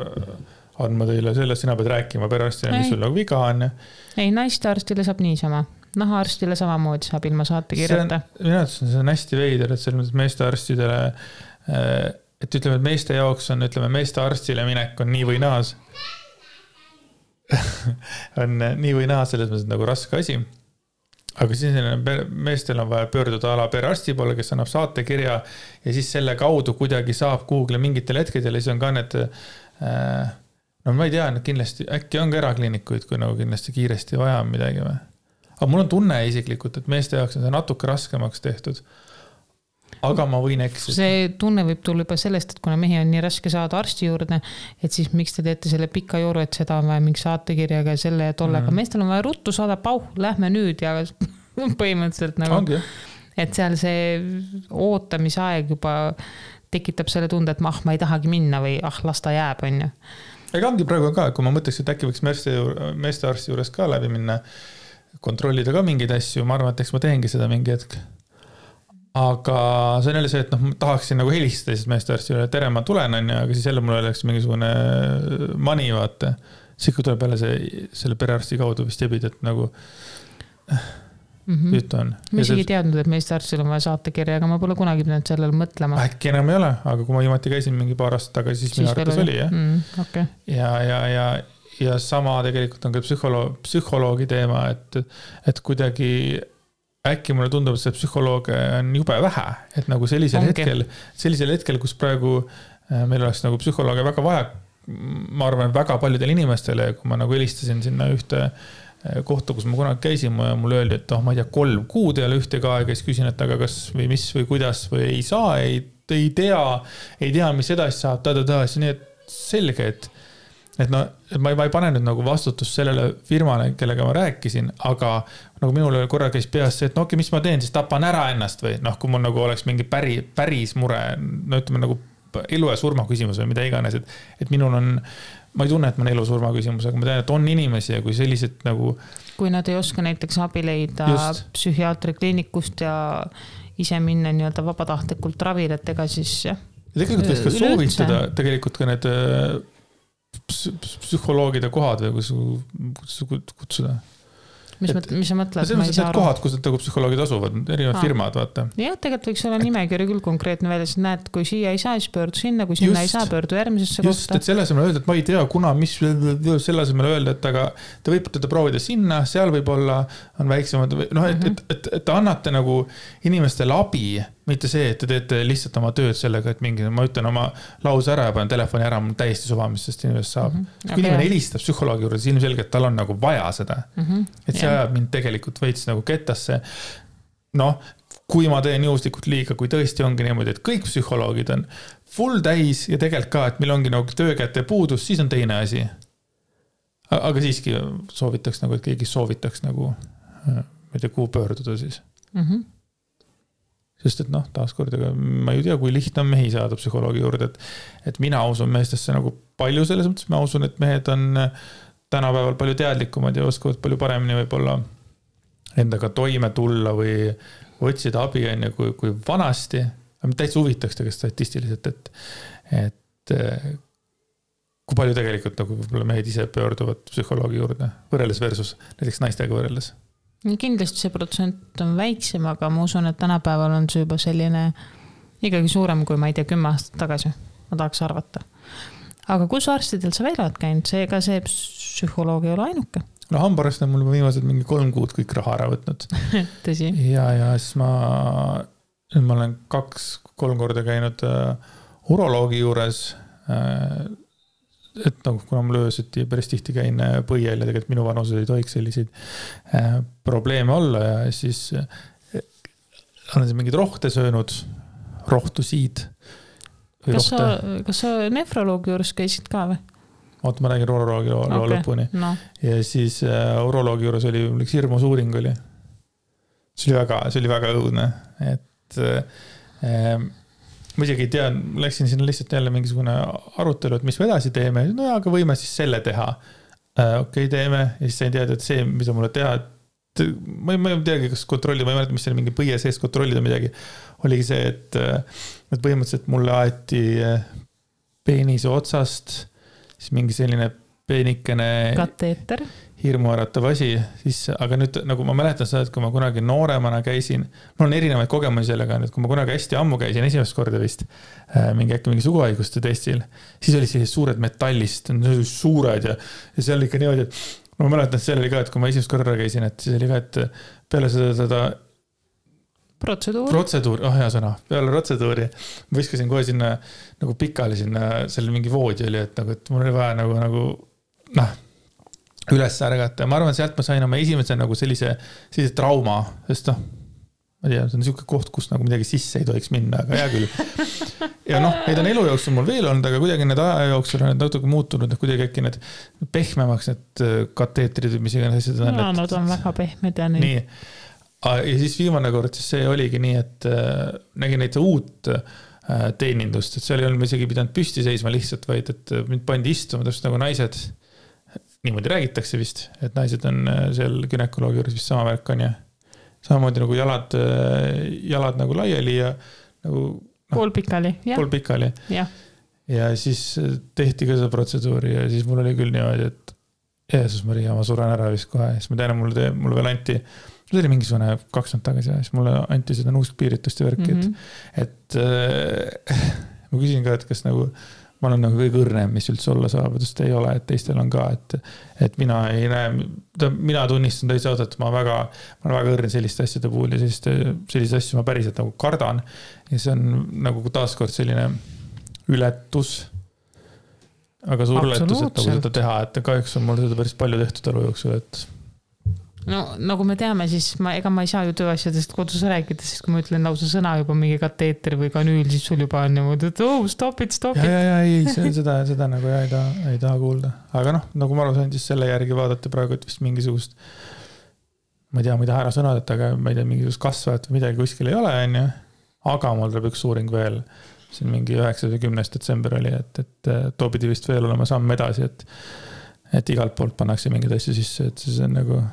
andma teile sellest, sina pead rääkima perearstile, mis sul nagu viga on. Ei, naiste arstile saab niisama. Nahaarstile samamoodi saab ilma saate kirjata. Minu arvates see on hästi veider, et selles mõttes meeste arstidele, et ütleme, et meeste jaoks on, meeste arstile minek on nii või naas. on nii või naa selles mõttes nagu raske asi. Aga siis meestel on vaja pöörduda ala perearsti poole, kes annab saatekirja ja siis selle kaudu kuidagi saab Google mingitel hetkedel ja siis on ka need no ma ei tea, kindlasti äkki on ka erakliinikuid, kui nagu kindlasti kiiresti vaja on midagi või. Aga mul on tunne isiklikult, et meeste jaoks on see natuke raskemaks tehtud. Aga ma võin eksida. See tunne võib tulla juba sellest, et kuna mehi on nii raske saada arsti juurde, et siis miks te teete selle pika jooru, et seda on vaja mingi saatekirjaga ja selle ja tollega. Meestel on vaja ruttu saada, lähme nüüd ja põhimõtteliselt nagu, ongi. Et seal see ootamisaeg juba tekitab selle tunde, et ma ei tahagi minna või las ta jääb, on ju. Ega ongi praegu ka, kui ma mõtleks, et äkki võiks meeste arsti juures ka läbi minna, kontrollida ka mingeid asju, ma arvan, et eks ma teengi seda mingi hetk. Aga see on jälle see, et ma tahaksin nagu helistada siis meeste arstile, et tere, ma tulen, aga siis jälle mul oleks mingisugune mani, vaata. Siis kui tuleb jälle selle perearsti kaudu vist jebid, et nagu jutt on. Ma isegi teadnud, et meeste arstil on vaja saatekirja, aga ma pole kunagi pidanud sellele mõtlema. Äkki enam ei ole, aga kui ma viimati käisin mingi paar aastat tagasi, siis minu arvates oli, jah. Okay. Ja sama tegelikult on ka psühholoogi teema, et kuidagi äkki mulle tundub, et see psühholooge on jube vähe, et nagu sellisel hetkel, kus praegu meil oleks nagu psühholooge väga vaja, ma arvan, väga paljudel inimestele, kui ma nagu helistasin sinna ühte kohta, kus ma kunagi käisin, mulle öeldi, et ma ei tea, 3 kuud ei ole ühtegi aega, siis küsin, et aga kas või mis või kuidas või ei saa, ei tea, mis edasi saab, siis nii, et selge, et ma ei pane nüüd nagu vastutust sellele firmale, kellega ma rääkisin, aga nagu minul korra käis peas see, et mis ma teen, siis tapan ära ennast või kui mul nagu oleks mingi päris mure, ütleme nagu elu ja surma küsimus või mida iganes, et minul on, ma ei tunne, et ma on elu surma küsimus, aga ma tean, et on inimesi ja kui sellised nagu... Kui nad ei oska näiteks abi leida psühhiaatri kliinikust ja ise minna nii-öelda vabatahtlikult ravile, et ega siis jah. Ja tegelikult võiks ka soovitada tegelikult ka need psühholoogide kohad või kuidas kutsuda. Mis sa mõtled? See on kohad, kus need psühholoogid asuvad, erinevad firmad, vaata. Jah, tegelikult võiks olla nimekiri küll konkreetne välja, siis näed, kui siia ei saa, siis pöördu sinna, kui sinna ei saa, pöördu järgmisesse kohta. Just, et selle asemel öelda, et ma ei tea, kuna, mis selle asemel öelda, et aga te võite teda proovida sinna, seal võib-olla on väiksemad, et annate nagu inimestele abi, mitte see, et te teete lihtsalt oma tööd sellega, et mingi, ma ütlen oma lause ära ja panen telefoni ära, mul täiesti suva, mis sest inimest saab. Kui inimene helistab psühholoogi juurde, siis ilmselgelt tal on nagu vaja seda. Et see ajab mind tegelikult veits nagu kettasse. Kui ma teen juhuslikult liiga, kui tõesti ongi niimoodi, et kõik psühholoogid on full täis ja tegelikult ka, et meil ongi nagu töökäte puudus, siis on teine asi. Aga siiski soovitaks nagu, et keegi soovitaks nagu, ma ei tea, kuhu pöörduda siis. Sest et taaskord, ma ei tea, kui lihtne on mehi saada psühholoogi juurde, et mina usun meestesse nagu palju selles mõttes, ma usun, et mehed on tänapäeval palju teadlikumad ja oskavad palju paremini võib-olla endaga toime tulla või otsida abi enne kui vanasti. Täitsa huvitaks tegelikult statistiliselt, et kui palju tegelikult nagu võib-olla mehed ise pöörduvad psühholoogi juurde võrreldes versus näiteks naistega võrreldes. Kindlasti see protsent on väiksem, aga ma usun, et tänapäeval on see juba selline ikkagi suurem kui ma ei tea 10 aastat tagasi. Ma tahaks arvata. Aga kus arstidel sa veel oled käinud? Seega see psühholoog ei ole ainuke. Hambarast on mul viimased mingi 3 kuud kõik raha ära võtnud. Tõsi. Ja siis ma olen 2-3 korda käinud uroloogi juures, et kuna mul ööseti päris tihti käin põiel ja tegelikult minu vanused ei tohiks selliseid probleeme olla ja siis olen mingid rohte söönud, rohtusiid. Kas sa nefroloogi juures käisid ka või? Oota, ma räägin uroloogi lõpuni. Ja siis uroloogi juures oli üks hirmus uuring oli. See oli väga õudne, et ma isegi ei tea, läksin sinna lihtsalt jälle mingisugune arutelu, et mis me edasi teeme, aga võime siis selle teha. Okei, teeme, ja siis sain teada, et see, mida mulle teha, et ma ei teagi, kas kontrollida, ma ei mäleta, mis selle mingi põie sees kontrollida midagi, oligi see, et põhimõtteliselt mulle aeti peenise otsast, siis mingi selline peenikene kateeter. Hirmuäratav asi, siis, aga nüüd nagu ma mäletan seda, et kui ma kunagi nooremana käisin, mul on erinevaid kogemusi sellega, et kui ma kunagi hästi ammu käisin esimest korda vist mingi suguhaiguste testil, siis oli sellised suured metallist, suured ja see oli ikka niimoodi, et ma mäletan, et see oli ka, et kui ma esimest korda käisin, et siis oli ka, et peale seda protseduur, hea sõna, peale protseduuri ma viskasin kohe sinna nagu pikali sinna, seal mingi voodi oli, et mul oli vaja nagu üles ärgata ja ma arvan, sealt ma sain oma esimese nagu sellise trauma, sest ma tea, see on niisugune koht, kus nagu midagi sisse ei tohiks minna, aga hea küll. Ja neid on elu jooksul mul veel olnud, aga kuidagi need aja jooksul on natuke muutunud, kuidagi äkki need pehmemaks need kateetrid, mis iganes asjad on. Nad on väga pehmed ja nii. Ja siis viimane kord, siis see oligi nii, et nägin neid uut teenindust, et seal ei olnud isegi pidanud püsti seisma lihtsalt, vaid et mind pandi istuma täpselt nagu naised, niimoodi räägitakse vist, et naised on seal günekoloogi juures vist sama värk on ja samamoodi nagu jalad nagu laiali ja nagu poolpikali. Ja siis tehti ka seda protseduuri ja siis mul oli küll niimoodi, et Jeesus Maria, ma suren ära vist kohe, siis ma tean, mulle veel anti see oli mingisugune 2 aastat tagasi ja siis mulle anti seda nuuskpiiritust ja värki, et ma küsin ka, et kas nagu ma olen nagu kõige õrnem, mis üldse olla saab, sest ei ole, et teistel on ka, et mina ei näe, mina tunnistan täitsa ausalt, et ma olen väga õrn selliste asjade puhul ja selliste asju ma päriselt nagu kardan ja see on nagu taaskord selline ületus, aga suur ületus, et nagu seda teha, et kahjuks on mul seda päris palju tehtud elu jooksul, et no nagu me teame, siis ega ma ei saa ju tööasjadest kodus rääkida, sest kui ma ütlen lausa sõna juba mingi kateeter või kanüül, siis sul juba on niimoodi, et stop it. Ei, seda nagu ei taha kuulda. Aga nagu ma aru sain, siis selle järgi vaadata praegu, et vist mingisugust, ma ei tea, ma ei taha ära sõnad, aga ma ei tea, mingisugust kasvavat või midagi kuskil ei ole, on ju. Aga mul tuleb üks uuring veel, siin mingi 9. või 10. detsember oli, et too pidi vist veel olema samm edasi, et igalt poolt pannakse mingid asju sisse, et siis on nagu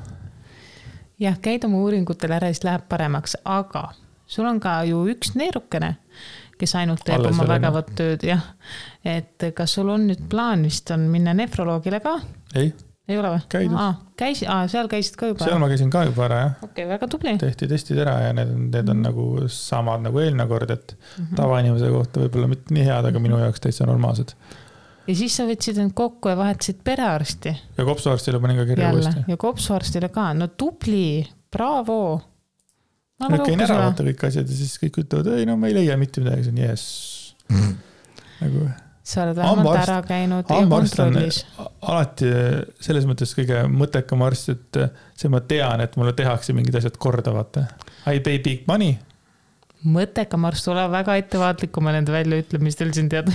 jah, käid oma uuringutel ära, siis läheb paremaks, aga sul on ka ju üks neerukene, kes ainult teeb oma vägevat tööd, jah. Et kas sul on nüüd plaan vist on minna nefroloogile ka? Ei ole või? Käidud. Seal käisid ka juba? Seal ma käisin ka juba ära, jah. Okei, väga tubli. Tehti testid ära ja need on nagu samad nagu eelmine kord, et tavainimese kohta võib-olla mitte nii head, aga minu jaoks täitsa normaalsed. Ja siis sa võtsid end kokku ja vahetasid perearsti. Ja kopsuarstile panin ka kirja uuesti. Ja kopsuarstile ka. No tubli, bravo. Käin ära vaata kõik asjad ja siis kõik ütlevad, ei no ma ei leia mitte midagi, see on yes. Nagu sa oled vähemalt ära käinud ja kontrollis. Alati selles mõttes kõige mõttekam arst, et see ma tean, et mulle tehakse mingid asjad korda, vaata. I pay big money. Mõttekam arst ole väga ettevaatlik oma nende väljaütlemistel siin tead.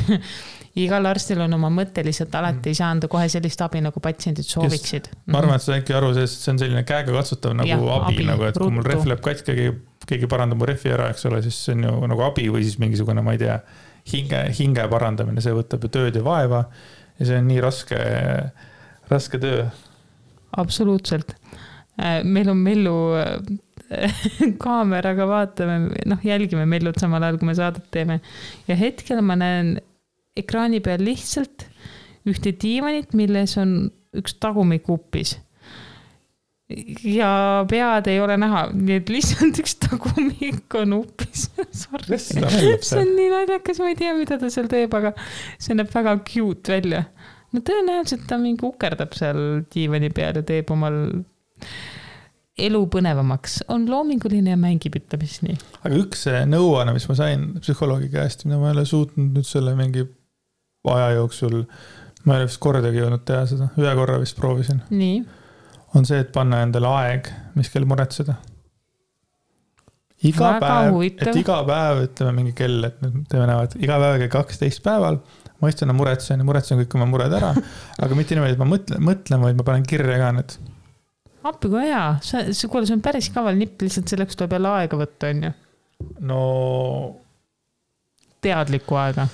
Igal arstil on oma mõte lihtsalt alati ei saa anda kohe sellist abi, nagu patsiendid sooviksid. Ma arvan, et see on äkki aru, sest see on selline käega katsutav nagu abi, nagu, et kui mul ref läheb katki, keegi parandab mu refi ära, eks ole, siis see on ju nagu abi või siis mingisugune, ma ei tea, hinge parandamine, see võtab ju tööd ja vaeva ja see on nii raske töö. Absoluutselt. Meil on Mellu kaameraga vaatame, jälgime Mellut samal ajal, kui me saadet teeme ja hetkel ma näen ekraani peal lihtsalt ühte diivanit, milles on üks tagumik uppis. Ja pead ei ole näha, nii et lihtsalt üks tagumik on uppis. See on nii naljakas, ma ei tea, mida ta seal teeb, aga see näeb väga cute välja. No tõenäoliselt ta mingi ukerdab seal diivani peal ja teeb omal elu põnevamaks. On loominguline ja mängib, ütlemis nii. Aga üks nõuanne, mis ma sain psühholoogi käest, mida ma ei ole suutnud nüüd selle mingi aja jooksul, ma ei ole vist kordagi jõudnud teha seda, ühe korra vist proovisin. Nii. On see, et panna endale aeg, mis kell muretseda. Iga päev, ütleme mingi kell, et nüüd teeme näevad, iga päev 12 päeval, ma istun ja muretsen kõik oma mured ära, aga mitte niimoodi, et ma mõtlen, vaid ma panen kirja ka need. Appi kui hea, see on päris kaval nipp, lihtsalt selleks tuleb jälle aega võtta, on ju? No teadlikku aega.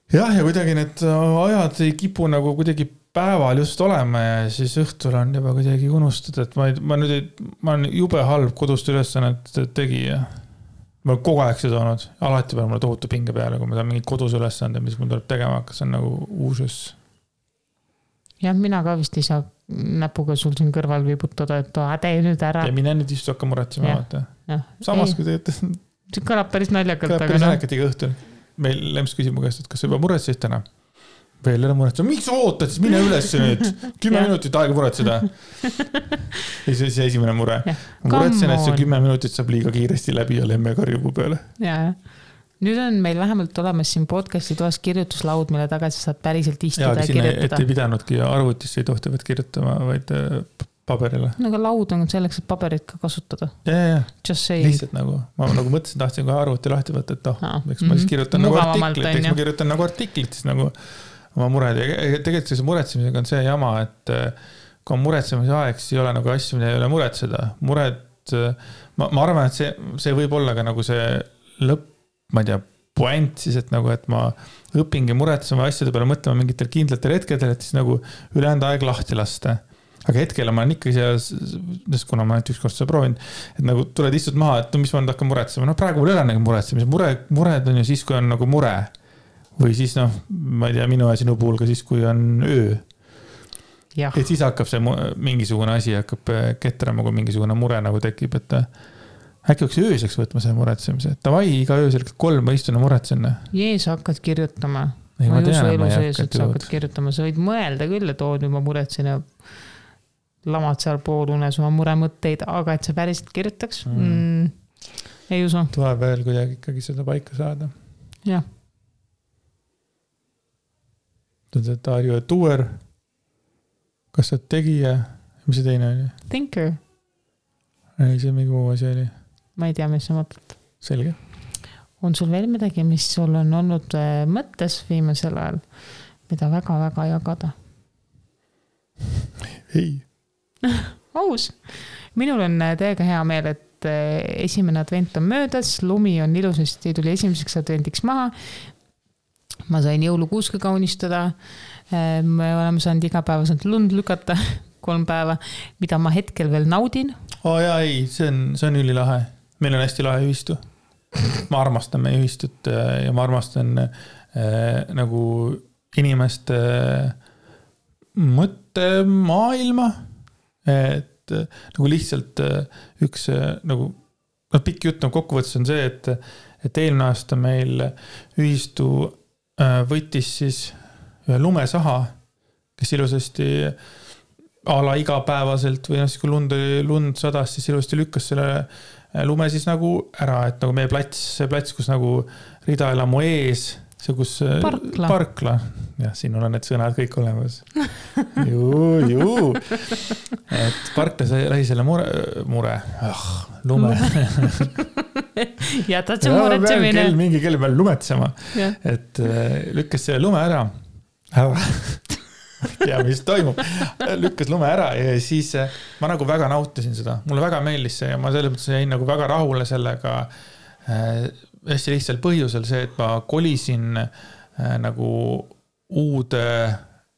Jah, ja kuidagi need ajad ei kipu nagu kuidagi päeval just olema ja siis õhtul on juba kuidagi unustada, et ma olen jube halb kodust ülesannet tegija. Ma olen kogu aeg seda olnud, alati peale mulle tohutu pinge peale, kui ma saan mingid kodus ülesande, mis mul tuleb tegema, kas on nagu uusus. Jah, mina ka vist ei saa näpuga sul siin kõrval viibutada, et tee nüüd ära. Ja mine nüüd istu hakka muretsema, vaata. Samas, kui te see kõlab päris naljakalt. Kõlab päris naljakalt iga õhtul. Meil Lems küsib mu käest, et kas sa juba muretsesid täna? veel ära muretseda, miks sa ootad, siis mine üles nüüd, 10 minutit aega muretseda. Ja see esimene mure. Muretsen, et see 10 minutit saab liiga kiiresti läbi ja lemme karjubu peale. Ja. Nüüd on meil vähemalt olemas siin podcasti toas kirjutuslaud, mille taga sa saad päriselt istuda ja kirjutada. Et ei pidanudki arvutisse ei tohtivat kirjutama, vaid paberile. No aga laud on selleks, et paberit ka kasutada. Ja. Lihtsalt nagu, ma nagu mõtlesin, tahtsin kohe arvuti lahti võtta, et eks ma siis kirjutan nagu artiklit, eks ma kirjutan nagu artiklit, siis nagu oma mured. Ja tegelikult see muretsemisega on see jama, et kui on muretsemise aeg, siis ei ole nagu asju, mida ei ole muretseda. Mured, ma arvan, et see võib olla ka nagu see lõpp, ma ei tea, point siis, et nagu, et ma õpingi muretsema asjade peale mõtlema mingitel kindlatel hetkedel, et siis nagu ülejäänud aeg lahti lasta. Aga hetkel ma olen ikkagi seal, kuna ma ainult üks kord seda proovin, et nagu tuled istud maha, et no mis ma nüüd hakkan muretsema. No praegu mul ei ole nagu muretsemise. Mured on ju siis, kui on nagu mure. Või siis ma ei tea, minu ja sinu puhul ka siis, kui on öö. Ja. Et siis hakkab see mingisugune asi hakkab ketrama, kui mingisugune mure nagu tekib, et äkki oleks ööseks võtma see muretsemise. Tavai, iga öösel 3 ma istun ja muretsen. Jees, hakkad kirjutama. Ma ei usu elu sees, et sa hakkad kirjutama. Sa võid mõelda küll, et nüüd ma muretsen ja lamad seal poolunes oma muremõtteid, aga et sa päriselt kirjutaks, ei usu. Tuleb veel kuidagi ikkagi seda paika saada. Jah. Are you a doer? Kas sa tegija? Mis see teine oli? Thinker. Ei, see mingi muu asi oli. Ma ei tea, mis sa mõtled. Selge. On sul veel midagi, mis sul on olnud mõttes viimasel ajal, mida väga-väga jagada? Ei. Aus. Minul on täiega hea meel, et esimene advent on möödas, lumi on ilusasti, tuli esimeseks adventiks maha. Ma sain jõulukuuska kaunistada. Me oleme saanud igapäevaselt lund lükata 3 päeva, mida ma hetkel veel naudin. Jaa, ei, see on ülilahe. Meil on hästi lahe ühistu. Ma armastan meie ühistut ja ma armastan nagu inimeste mõttemaailma, et nagu lihtsalt üks nagu pikk jutt kokkuvõttes on see, et eelmine aasta meil ühistu võttis siis ühe lumesaha, kes ilusasti ala igapäevaselt või siis kui lund sadas, siis ilusasti lükkas selle lume siis nagu ära, et nagu meie see plats, kus nagu ridaelamu ees, see kus parkla. Jah, siin on need sõnad kõik olemas. Juu. Et parkla lähi selle mure. Lume. Jätad see muretsemine. Mingi kell peal lumetsema. Et lükkas selle lume ära. Ja mis toimub. Lükkas lume ära ja siis ma nagu väga nautisin seda. Mulle väga meeldis see ja ma selles mõttes jäin nagu väga rahule sellega hästi lihtsalt põhjusel see, et ma kolisin nagu uude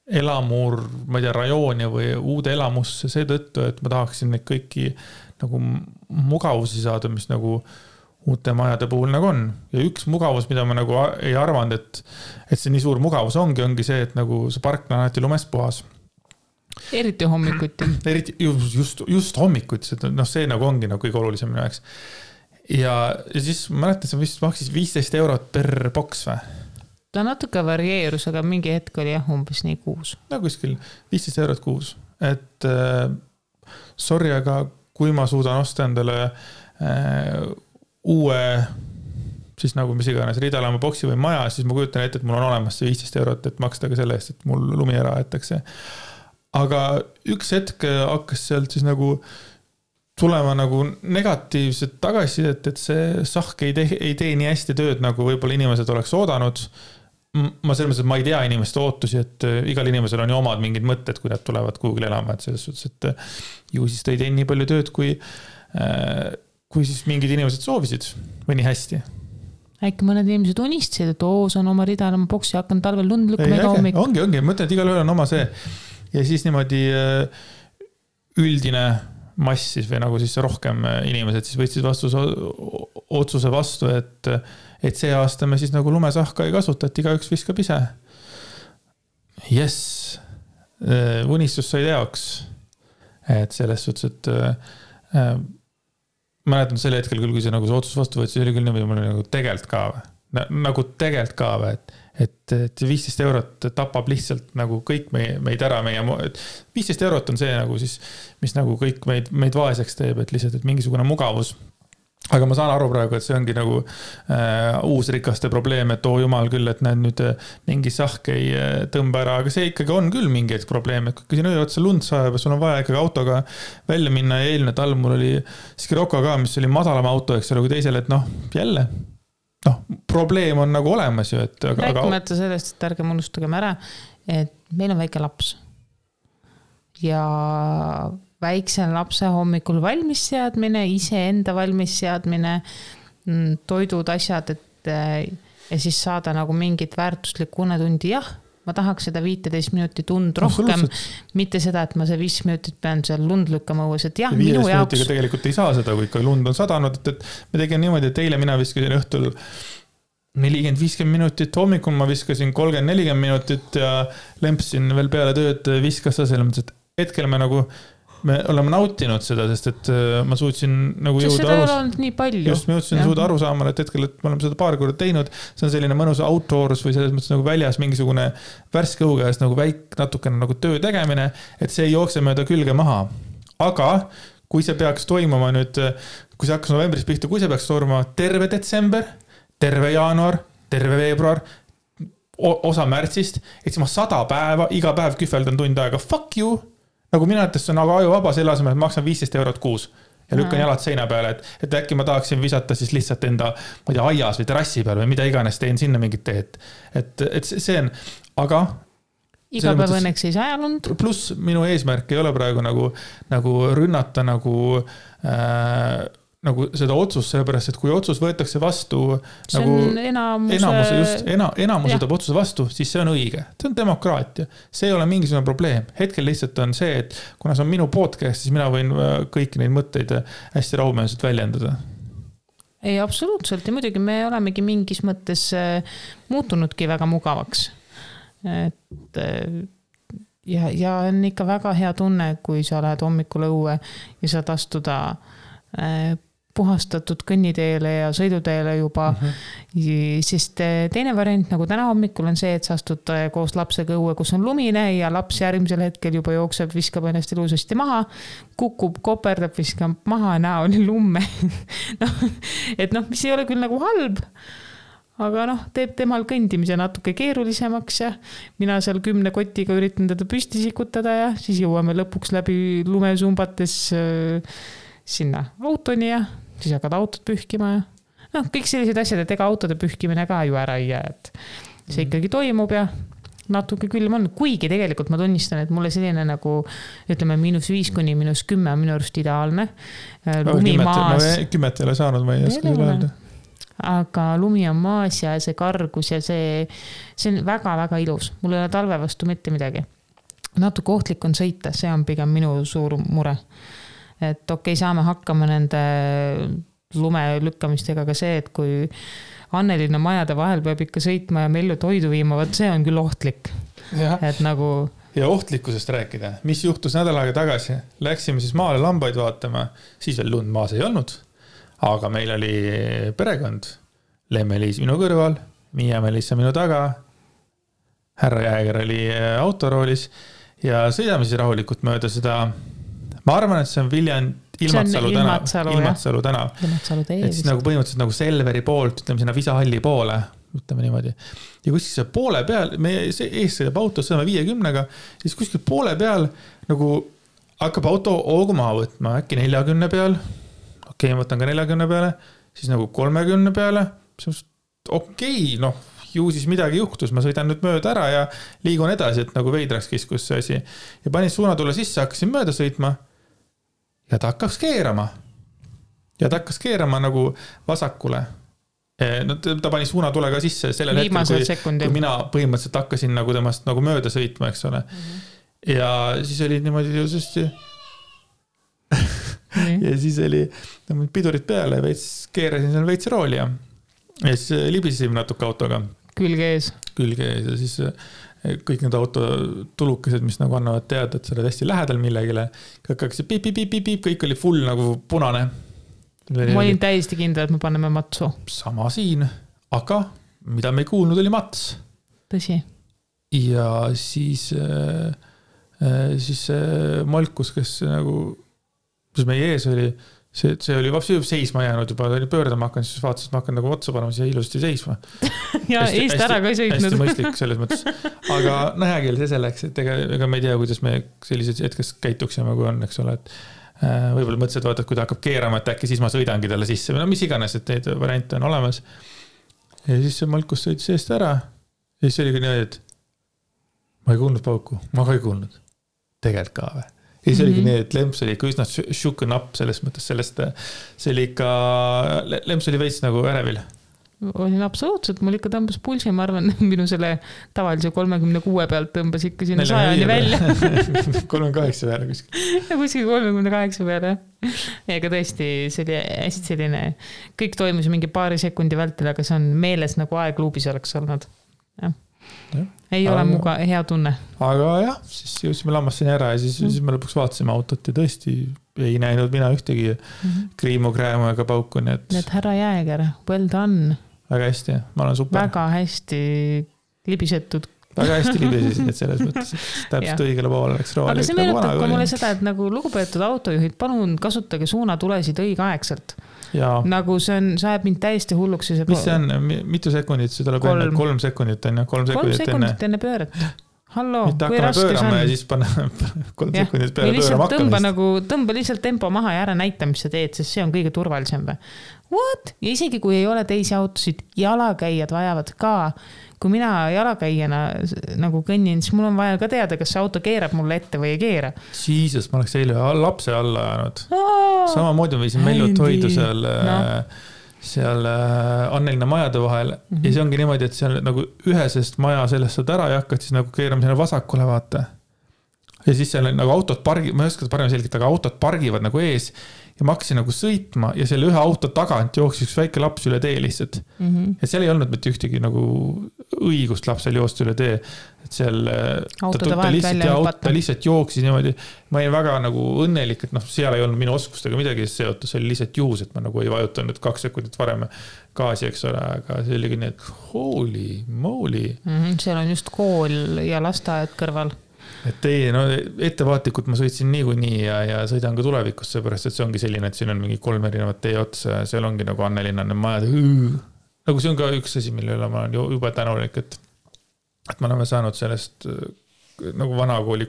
elamur, ma ei tea, rajooni või uude elamusse seetõttu, et ma tahaksin neid kõiki nagu mugavusi saada, mis nagu uute majade puhul nagu on. Ja üks mugavus, mida ma nagu ei arvanud, et see nii suur mugavus ongi see, et nagu see park on alati lumest puhas. Eriti hommikuti. Eriti just hommikuti, see nagu ongi nagu kõige olulisem minu jaoks. Ja siis ma mäletan, see vist maksis 15 eurot per boks või? Ta natuke varieerus, aga mingi hetk oli umbes nii kuus. No kuskil 15 eurot kuus. Et sorry, aga kui ma suudan osta endale uue siis nagu mis iganes ridalaama boksi või maja, siis ma kujutan ette, et mul on olemas see 15 eurot, et maksta ka selle eest, et mul lumi ära aetakse. Aga üks hetk hakkas sealt siis nagu tulema nagu negatiivset tagasisidet, et see sahk ei tee nii hästi tööd, nagu võib-olla inimesed oleks oodanud. Ma selles mõttes, et ma ei tea inimeste ootusi, et igal inimesel on ju omad mingid mõtted, kui nad tulevad kuhugil elama, et selles suhtes, et ju siis ta ei tee nii palju tööd, kui siis mingid inimesed soovisid või nii hästi. Äkki mõned inimesed unistasid, et see on oma ridalama boksi, hakkan talvel lund lükkama iga hommik. Ongi, mõtlen, et igal ühel on oma see. Ja siis niimoodi üldine mass siis või nagu siis rohkem inimesed siis võtsid otsuse vastu, et see aasta me siis nagu lumesahka ei kasuta, et igaüks viskab ise. Yes, unistus sai teoks. Et selles suhtes, et mäletan selle hetkel küll, kui see nagu see otsus vastu võttis, oli küll niimoodi, mul oli nagu tegelt ka või. Nagu tegelt ka või, et 15 eurot tapab lihtsalt nagu kõik meid ära, 15 eurot on see nagu siis, mis nagu kõik meid vaeseks teeb, et lihtsalt, et mingisugune mugavus. Aga ma saan aru praegu, et see ongi nagu uus rikaste probleem, et jumal küll, et näed nüüd mingi sahk ei tõmba ära, aga see ikkagi on küll mingi probleem, et kui siin öö otsa lund sajab ja sul on vaja ikkagi autoga välja minna ja eelmine talv mul oli Scirocco ka, mis oli madalama auto, eks ole, kui teisel, et jälle, probleem on nagu olemas ju, et rääkimata sellest, et ärgem unustagem ära, et meil on väike laps ja väikse lapse hommikul valmis seadmine, iseenda valmis seadmine, toidud, asjad, ja siis saada nagu mingit väärtuslikku unetundi, jah, ma tahaks seda 15 minutit und rohkem, mitte seda, et ma see 5 minutit pean seal lund lükkama õues, et jah, minu jaoks. 15 minutiga tegelikult ei saa seda, kui ikka lund on sadanud, et me tegin niimoodi, et eile mina viskasin õhtul 40-50 minutit, hommikul ma viskasin 30-40 minutit ja lempsin veel peale tööd, viskas sa selles mõttes, et hetkel me oleme nautinud seda, sest et ma suutsin nagu jõuda aru saama, et hetkel, et me oleme seda paar korda teinud, see on selline mõnus outdoors või selles mõttes nagu väljas mingisugune värske õhu käes nagu natukene nagu töö tegemine, et see ei jookse mööda külge maha. Aga kui see peaks toimuma nüüd, kui see hakkas novembris pihta, kui see peaks toimuma terve detsember, terve jaanuar, terve veebruar, osa märtsist, et siis ma 100 päeva, iga päev kühveldan tund aega, fuck you! Nagu mina ütles, see on nagu ajuvaba selle asemel, et maksan 15 eurot kuus ja lükkan jalad seina peale, et äkki ma tahaksin visata siis lihtsalt enda, ma ei tea, aias või terrassi peal või mida iganes, teen sinna mingit teed. Et see on, aga iga päev õnneks ei saa lund. Plus minu eesmärk ei ole praegu nagu rünnata nagu seda otsust, sellepärast, et kui otsus võetakse vastu, see nagu enamuse võtab otsuse vastu, siis see on õige. See on demokraatia. See ei ole mingisugune probleem. Hetkel lihtsalt on see, et kuna see on minu podcast, siis mina võin kõiki neid mõtteid hästi rahumeelselt väljendada. Ei, absoluutselt. Ja muidugi me olemegi mingis mõttes muutunudki väga mugavaks. Et ja on ikka väga hea tunne, kui sa lähed hommikul õue ja saad astuda puhastatud kõnniteele ja sõiduteele juba, sest teine variant nagu täna hommikul on see, et sa astud koos lapsega õue, kus on lumine ja laps järgmisel hetkel juba jookseb, viskab ennast ilusasti maha, kukub, koperdab, viskab maha, näoli lumme. Mis ei ole küll nagu halb, aga teeb temal kõndimise natuke keerulisemaks ja mina seal 10 kotiga üritan teda püsti sikutada ja siis jõuame lõpuks läbi lumesumbates sinna autoni ja siis hakkad autot pühkima ja kõik sellised asjad, et ega autode pühkimine ka ju ära ei jää, et see ikkagi toimub ja natuke külm on, kuigi tegelikult ma tunnistan, et mulle selline nagu ütleme -5 kuni -10 on minu arust ideaalne. Lumi maas. 10 ei ole saanud, ma ei oska öelda. Aga lumi on maas ja see kargus ja see on väga-väga ilus. Mul ei ole talve vastu mitte midagi. Natuke ohtlik on sõita, see on pigem minu suur mure. Et okei, saame hakkama nende lume lükkamistega ka see, et kui Annelinna majade vahel peab ikka sõitma ja mellu toidu viima, võt see on küll ohtlik. Et nagu... Ja ohtlikkusest rääkida, mis juhtus nädal aega tagasi. Läksime siis maale lambaid vaatama, siis veel lund maas ei olnud, aga meil oli perekond, Lemme-Liis minu kõrval, Miia-Melissa minu taga, härra Jääger oli autoroolis ja sõidame siis rahulikult mööda seda. Ma arvan, et see on Ilmatsalu tänav. Et siis nagu põhimõtteliselt nagu Selveri poolt, ütleme sinna Visahalli poole, ütleme niimoodi. Ja kuskil see poole peal, me ees sõidab auto, sõidame 50-ga, siis kuskil poole peal nagu hakkab auto hoogu maha võtma, äkki 40 peal, okei, ma võtan ka 40 peale, siis nagu 30 peale, okei, ju siis midagi juhtus, ma sõidan nüüd mööda ära ja liigun edasi, et nagu veidraks kiskus see asi. Ja panin suunatule sisse, hakkasin mööda sõitma ja ta hakkas keerama. Ja ta hakkas keerama nagu vasakule. Ta pani suunatulega sisse sellel hetkel, kui mina põhimõtteliselt hakkasin nagu temast nagu mööda sõitma, eks ole. Ja siis oli niimoodi jõusasti ja siis oli pidurid peale ja keerasin seal veits rooli ja siis libisime natuke autoga. Külge ees ja siis kõik need autotulukesed, mis nagu annavad teada, et sa oled hästi lähedal millegile. Kõik oli full nagu punane. Ma olin täiesti kindel, et me paneme matsu. Sama siin, aga mida me ei kuulnud oli mats. Tõsi. Ja siis Malkus, kes nagu, mis meie ees oli, see oli vabalt seisma jäänud juba, ta oli pöördama hakanud, siis vaatas, et ma hakkan nagu otsa panema, siis ilusti seisma. Ja eest ära ka ei sõitnud. Hästi mõistlik selles mõttes. Aga hea küll, see selleks, et ega me ei tea, kuidas me sellised hetkes käituksime, kui on, eks ole, et võib-olla mõtlesid, vaata, et kui ta hakkab keerama, et äkki siis ma sõidangi talle sisse, või no mis iganes, et neid variante on olemas. Ja siis see Malkus sõitis eest ära. Ja siis oligi nii, et ma ei kuulnud pauku, ma ka ei kuulnud. Tegelikult ka või. Ja siis oligi nii, et Lemps oli ikka üsna shooken up selles mõttes sellest, see oli ikka, Lemps oli veits nagu ärevil. Olin absoluutselt, mul ikka tõmbas pulsi, ma arvan, minu selle tavalise 36 pealt tõmbas ikka sinna 100 välja. 38 peale kuskil. Ja kuskil 38 peale. Ega tõesti, see oli hästi selline, kõik toimus mingi paari sekundi vältel, aga see on meeles nagu aegluubis oleks olnud. Ja. Ei ole muga hea tunne. Aga jah, siis jõudsime lammassini ära ja siis me lõpuks vaatasime autot ja tõesti ei näinud mina ühtegi kriimu, kräämu ega pauku. Nii et härra Jääger, well done. Väga hästi, ma olen super. Väga hästi libisetud. Väga hästi libisesid, et selles mõttes, et täpselt õigele poole läks rooli. Aga see meenutab ka mulle seda, et nagu lugupeetud autojuhid, palun kasutage suunatulesid õigeaegselt. Ja. Nagu see on, sa ajab mind täiesti hulluks. Mis see on? Mitu sekundit? See tuleb enne 3 sekundit enne. 3 sekundit enne pööret. Hallo, mitte hakkame pöörama ja siis panna 3 sekundit peale pöörama hakkamist. Tõmba lihtsalt tempo maha ja ära näita, mis sa teed, sest see on kõige turvalisem. What? Ja isegi kui ei ole teisi autosid, jalakäijad vajavad ka. Kui mina jalakäijana nagu kõnnin, siis mul on vaja ka teada, kas see auto keerab mulle ette või ei keera. Siises, ma oleks eile lapse alla ajanud. Samamoodi ma viisin Mellut hoidu seal Annelina majade vahel ja see ongi niimoodi, et seal nagu ühesest maja sellest saad ära ja hakkad siis nagu keerama sinna vasakule vaata. Ja siis seal nagu autod ma ei oska seda parem selgelt, aga autod pargivad nagu ees ja ma hakkasin nagu sõitma ja selle ühe auto tagant jooksis üks väike laps üle tee lihtsalt. Ja seal ei olnud mitte ühtegi nagu õigust lapsel joosta üle tee. Et seal ta lihtsalt jooksis niimoodi. Ma olin väga nagu õnnelik, et seal ei olnud minu oskustega midagi seotud, see oli lihtsalt juhus, et ma nagu ei vajutanud 2 sekundit varem gaasi, eks ole, aga see oligi nii, et holy moly. Seal on just kool ja lasteaed kõrval. Et ei, ettevaatlikult ma sõitsin niikuinii ja sõidan ka tulevikus, seepärast, et see ongi selline, et siin on mingi 3 erinevat tee otsa ja seal ongi nagu Annelinnane majad. Nagu see on ka üks asi, mille üle ma olen juba tänulik, et me oleme saanud sellest nagu vanakooli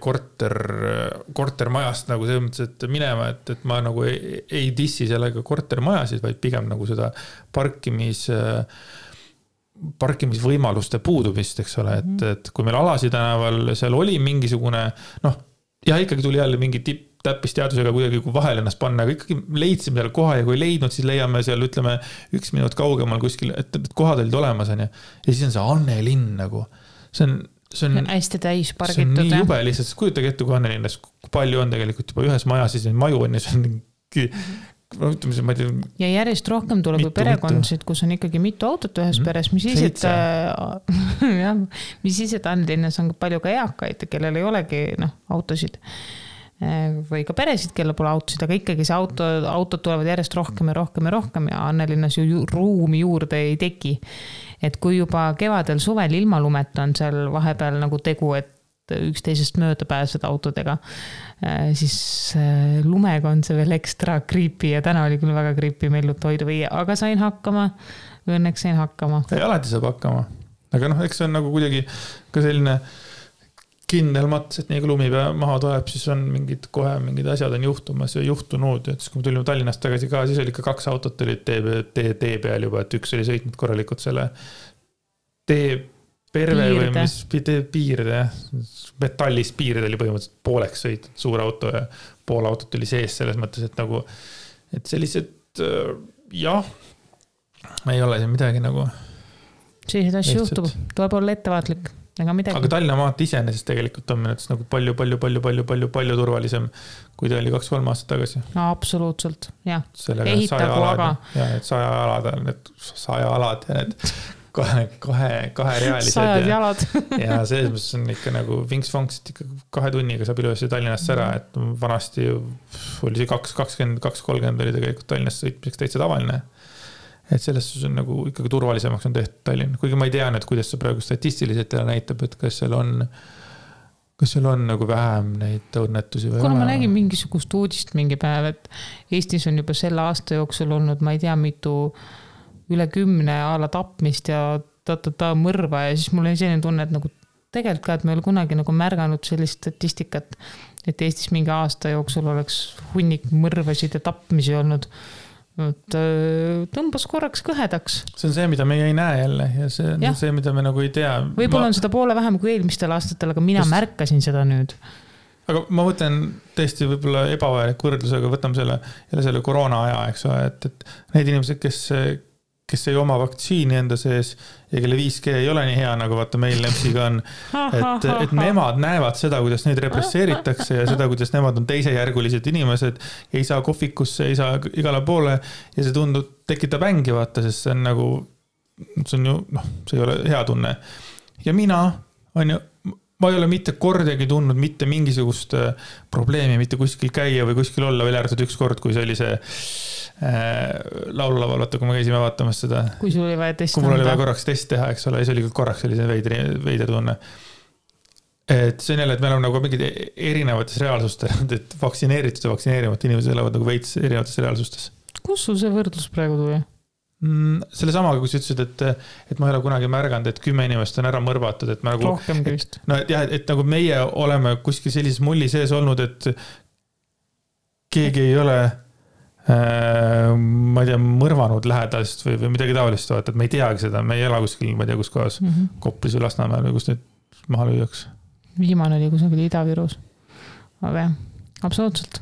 kortermajast nagu selles mõttes, et minema, et ma nagu ei dissi sellega kortermajasid, vaid pigem nagu seda parkimisvõimaluste puudumist, eks ole, et kui meil Alasi tänaval seal oli mingisugune, ikkagi tuli jälle mingi täppisteadusega kuidagi vahel ennast panna, aga ikkagi leidsime seal koha ja kui leidnud, siis leiame seal, ütleme, 1 minut kaugemal kuskil, et kohad olid olemas, on ja siis on see Annelinn nagu, see on hästi täis pargitud. See on nii jube lihtsalt, kujutage ette, kui Annelinnas, kui palju on tegelikult juba ühes majas, siis maju on ja see on ja järjest rohkem tuleb perekondasid, kus on ikkagi mitu autot ühes peres, mis siis, et Annelinnas on palju ka eakaid, kellel ei olegi autosid või ka peresid, kellel pole autosid, aga ikkagi see autod tulevad järjest rohkem ja rohkem ja rohkem ja Annelinnas ju ruumi juurde ei teki. Et kui juba kevadel suvel ilma lumeta on seal vahepeal nagu tegu, et üksteisest mööda pääseda autodega, siis lumega on see veel ekstra creepy ja täna oli küll väga creepy Mellut hoidu viia, aga sain hakkama, õnneks sain hakkama. Ei, alati saab hakkama, aga eks see on nagu kuidagi ka selline kindel mats, et nii kui lumi maha tuleb, siis on mingid asjad on juhtumas ja juhtunud, et siis kui me tulime Tallinnast tagasi ka, siis oli ikka 2 autot olid tee peal juba, et üks oli sõitnud korralikult selle tee perve või mis piirde, metallist piirde oli põhimõtteliselt pooleks sõitnud suur auto ja pool autot oli sees selles mõttes, et nagu, et sellised ei ole siin midagi nagu sellised asju juhtub, tuleb olla ettevaatlik aga Tallinna maat iseenesest tegelikult on minutes nagu palju turvalisem, kui ta oli 2-3 aastat tagasi. No absoluutselt, jah. Ehitagu aga. Ja need 100 alad ja need kaherealised. 100 jalad. Ja selles mõttes on ikka nagu vinks-vonks, et ikka 2 tunniga saab ilusti Tallinnast ära, et vanasti oli see 2.20-2.30 oli tegelikult Tallinnast sõitmiseks täitsa tavaline. et selles suhtes on nagu ikkagi turvalisemaks on tehtud Tallinn, kuigi ma ei tea nüüd, kuidas see praegu statistiliselt näitab, et kas seal on nagu vähem neid õnnetusi või kuna ma nägin mingisugust uudist mingi päev, et Eestis on juba selle aasta jooksul olnud, ma ei tea, mitu üle 10 ala tapmist ja mõrva ja siis mul oli selline tunne, et nagu tegelikult ka, et me ei ole kunagi nagu märganud sellist statistikat, et Eestis mingi aasta jooksul oleks hunnik mõrvasid ja tapmisi olnud. Tõmbas korraks kõhedaks. See on see, mida meie ei näe jälle ja see on see, mida me nagu ei tea. Võib-olla on seda poole vähem kui eelmistel aastatel, aga mina märkasin seda nüüd. Aga ma mõtlen tõesti võib-olla ebavajalik võrdlus, aga võtame selle koroona aja, eks ole, et need inimesed, kes ei oma vaktsiini enda sees ja kelle 5G ei ole nii hea, nagu vaata meil Lepsiga on, et nemad näevad seda, kuidas neid represseeritakse ja seda, kuidas nemad on teisejärgulised inimesed, ei saa kohvikusse, ei saa igale poole ja see tekitab ängi, vaata, sest see on nagu, see on ju, see ei ole hea tunne. Ja mina ma ei ole mitte kordagi tundnud mitte mingisugust probleemi, mitte kuskil käia või kuskil olla, veel ärtud üks kord, kui see oli see laululaval, vaata, kui me käisime vaatamas seda. Kui sul oli vaja testi kui mul oli vaja korraks test teha, eks ole, ja see oli korraks selline veider tunne. Et see on jälle, et meil on nagu mingid erinevates reaalsustes, et vaktsineeritud ja vaktsineerimata inimesed elavad nagu veits erinevates reaalsustes. Kus sul see võrdlus praegu tuli? Selle samaga, kui sa ütlesid, et ma ei ole kunagi märganud, et 10 inimest on ära mõrvatud, et me nagu, rohkemgi vist. Et nagu meie oleme kuskil sellises mulli sees olnud, et keegi ei ole ma ei tea, mõrvanud lähedast või midagi taolist, et me ei teagi seda, me ei ela kuskil, ma ei tea, kus kohas Koplis või Lasnamäel või kus nüüd maha lüüaks. Viimane oli kusagil Ida-Virus. Aga jah, absoluutselt.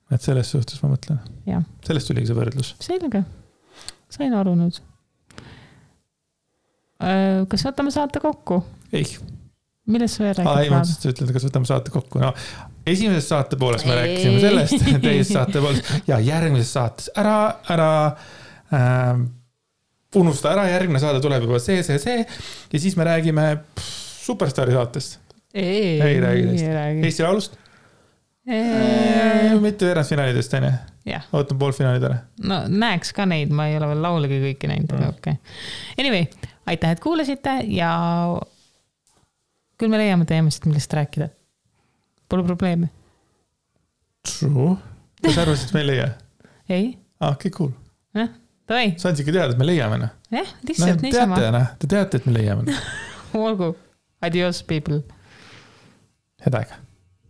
Et selles suhtes ma mõtlen. Ja. Sellest tuligi see võrdlus. Selge. Sain aru nüüd. Kas võtame saate kokku? Ei. Millest sa veel räägid? Ei, ma ütlen, kas võtame saate kokku. No, esimeses saate pooles me rääkisime sellest, teises saate pooles ja järgmises saates ära unusta ära, järgmine saade tuleb juba see ja siis me räägime Superstaari saatest. Ei räägi teist. Eesti laulust? Mitte veerandfinaalidest, on ju? Ootan poolfinaalid ära. No näeks ka neid, ma ei ole veel laulegi kõiki näinud. Okay. Anyway, aitäh, et kuulasite ja küll me leiame teemasid, millest rääkida. Pole probleemi. True. Kas arvasid, et me ei leia? Ei. Okay, cool. Tavai. Saan ikka teada, et me leiame. Lihtsalt niisama. Te teate, et me leiame. Olgu. Adios, people. Head aega.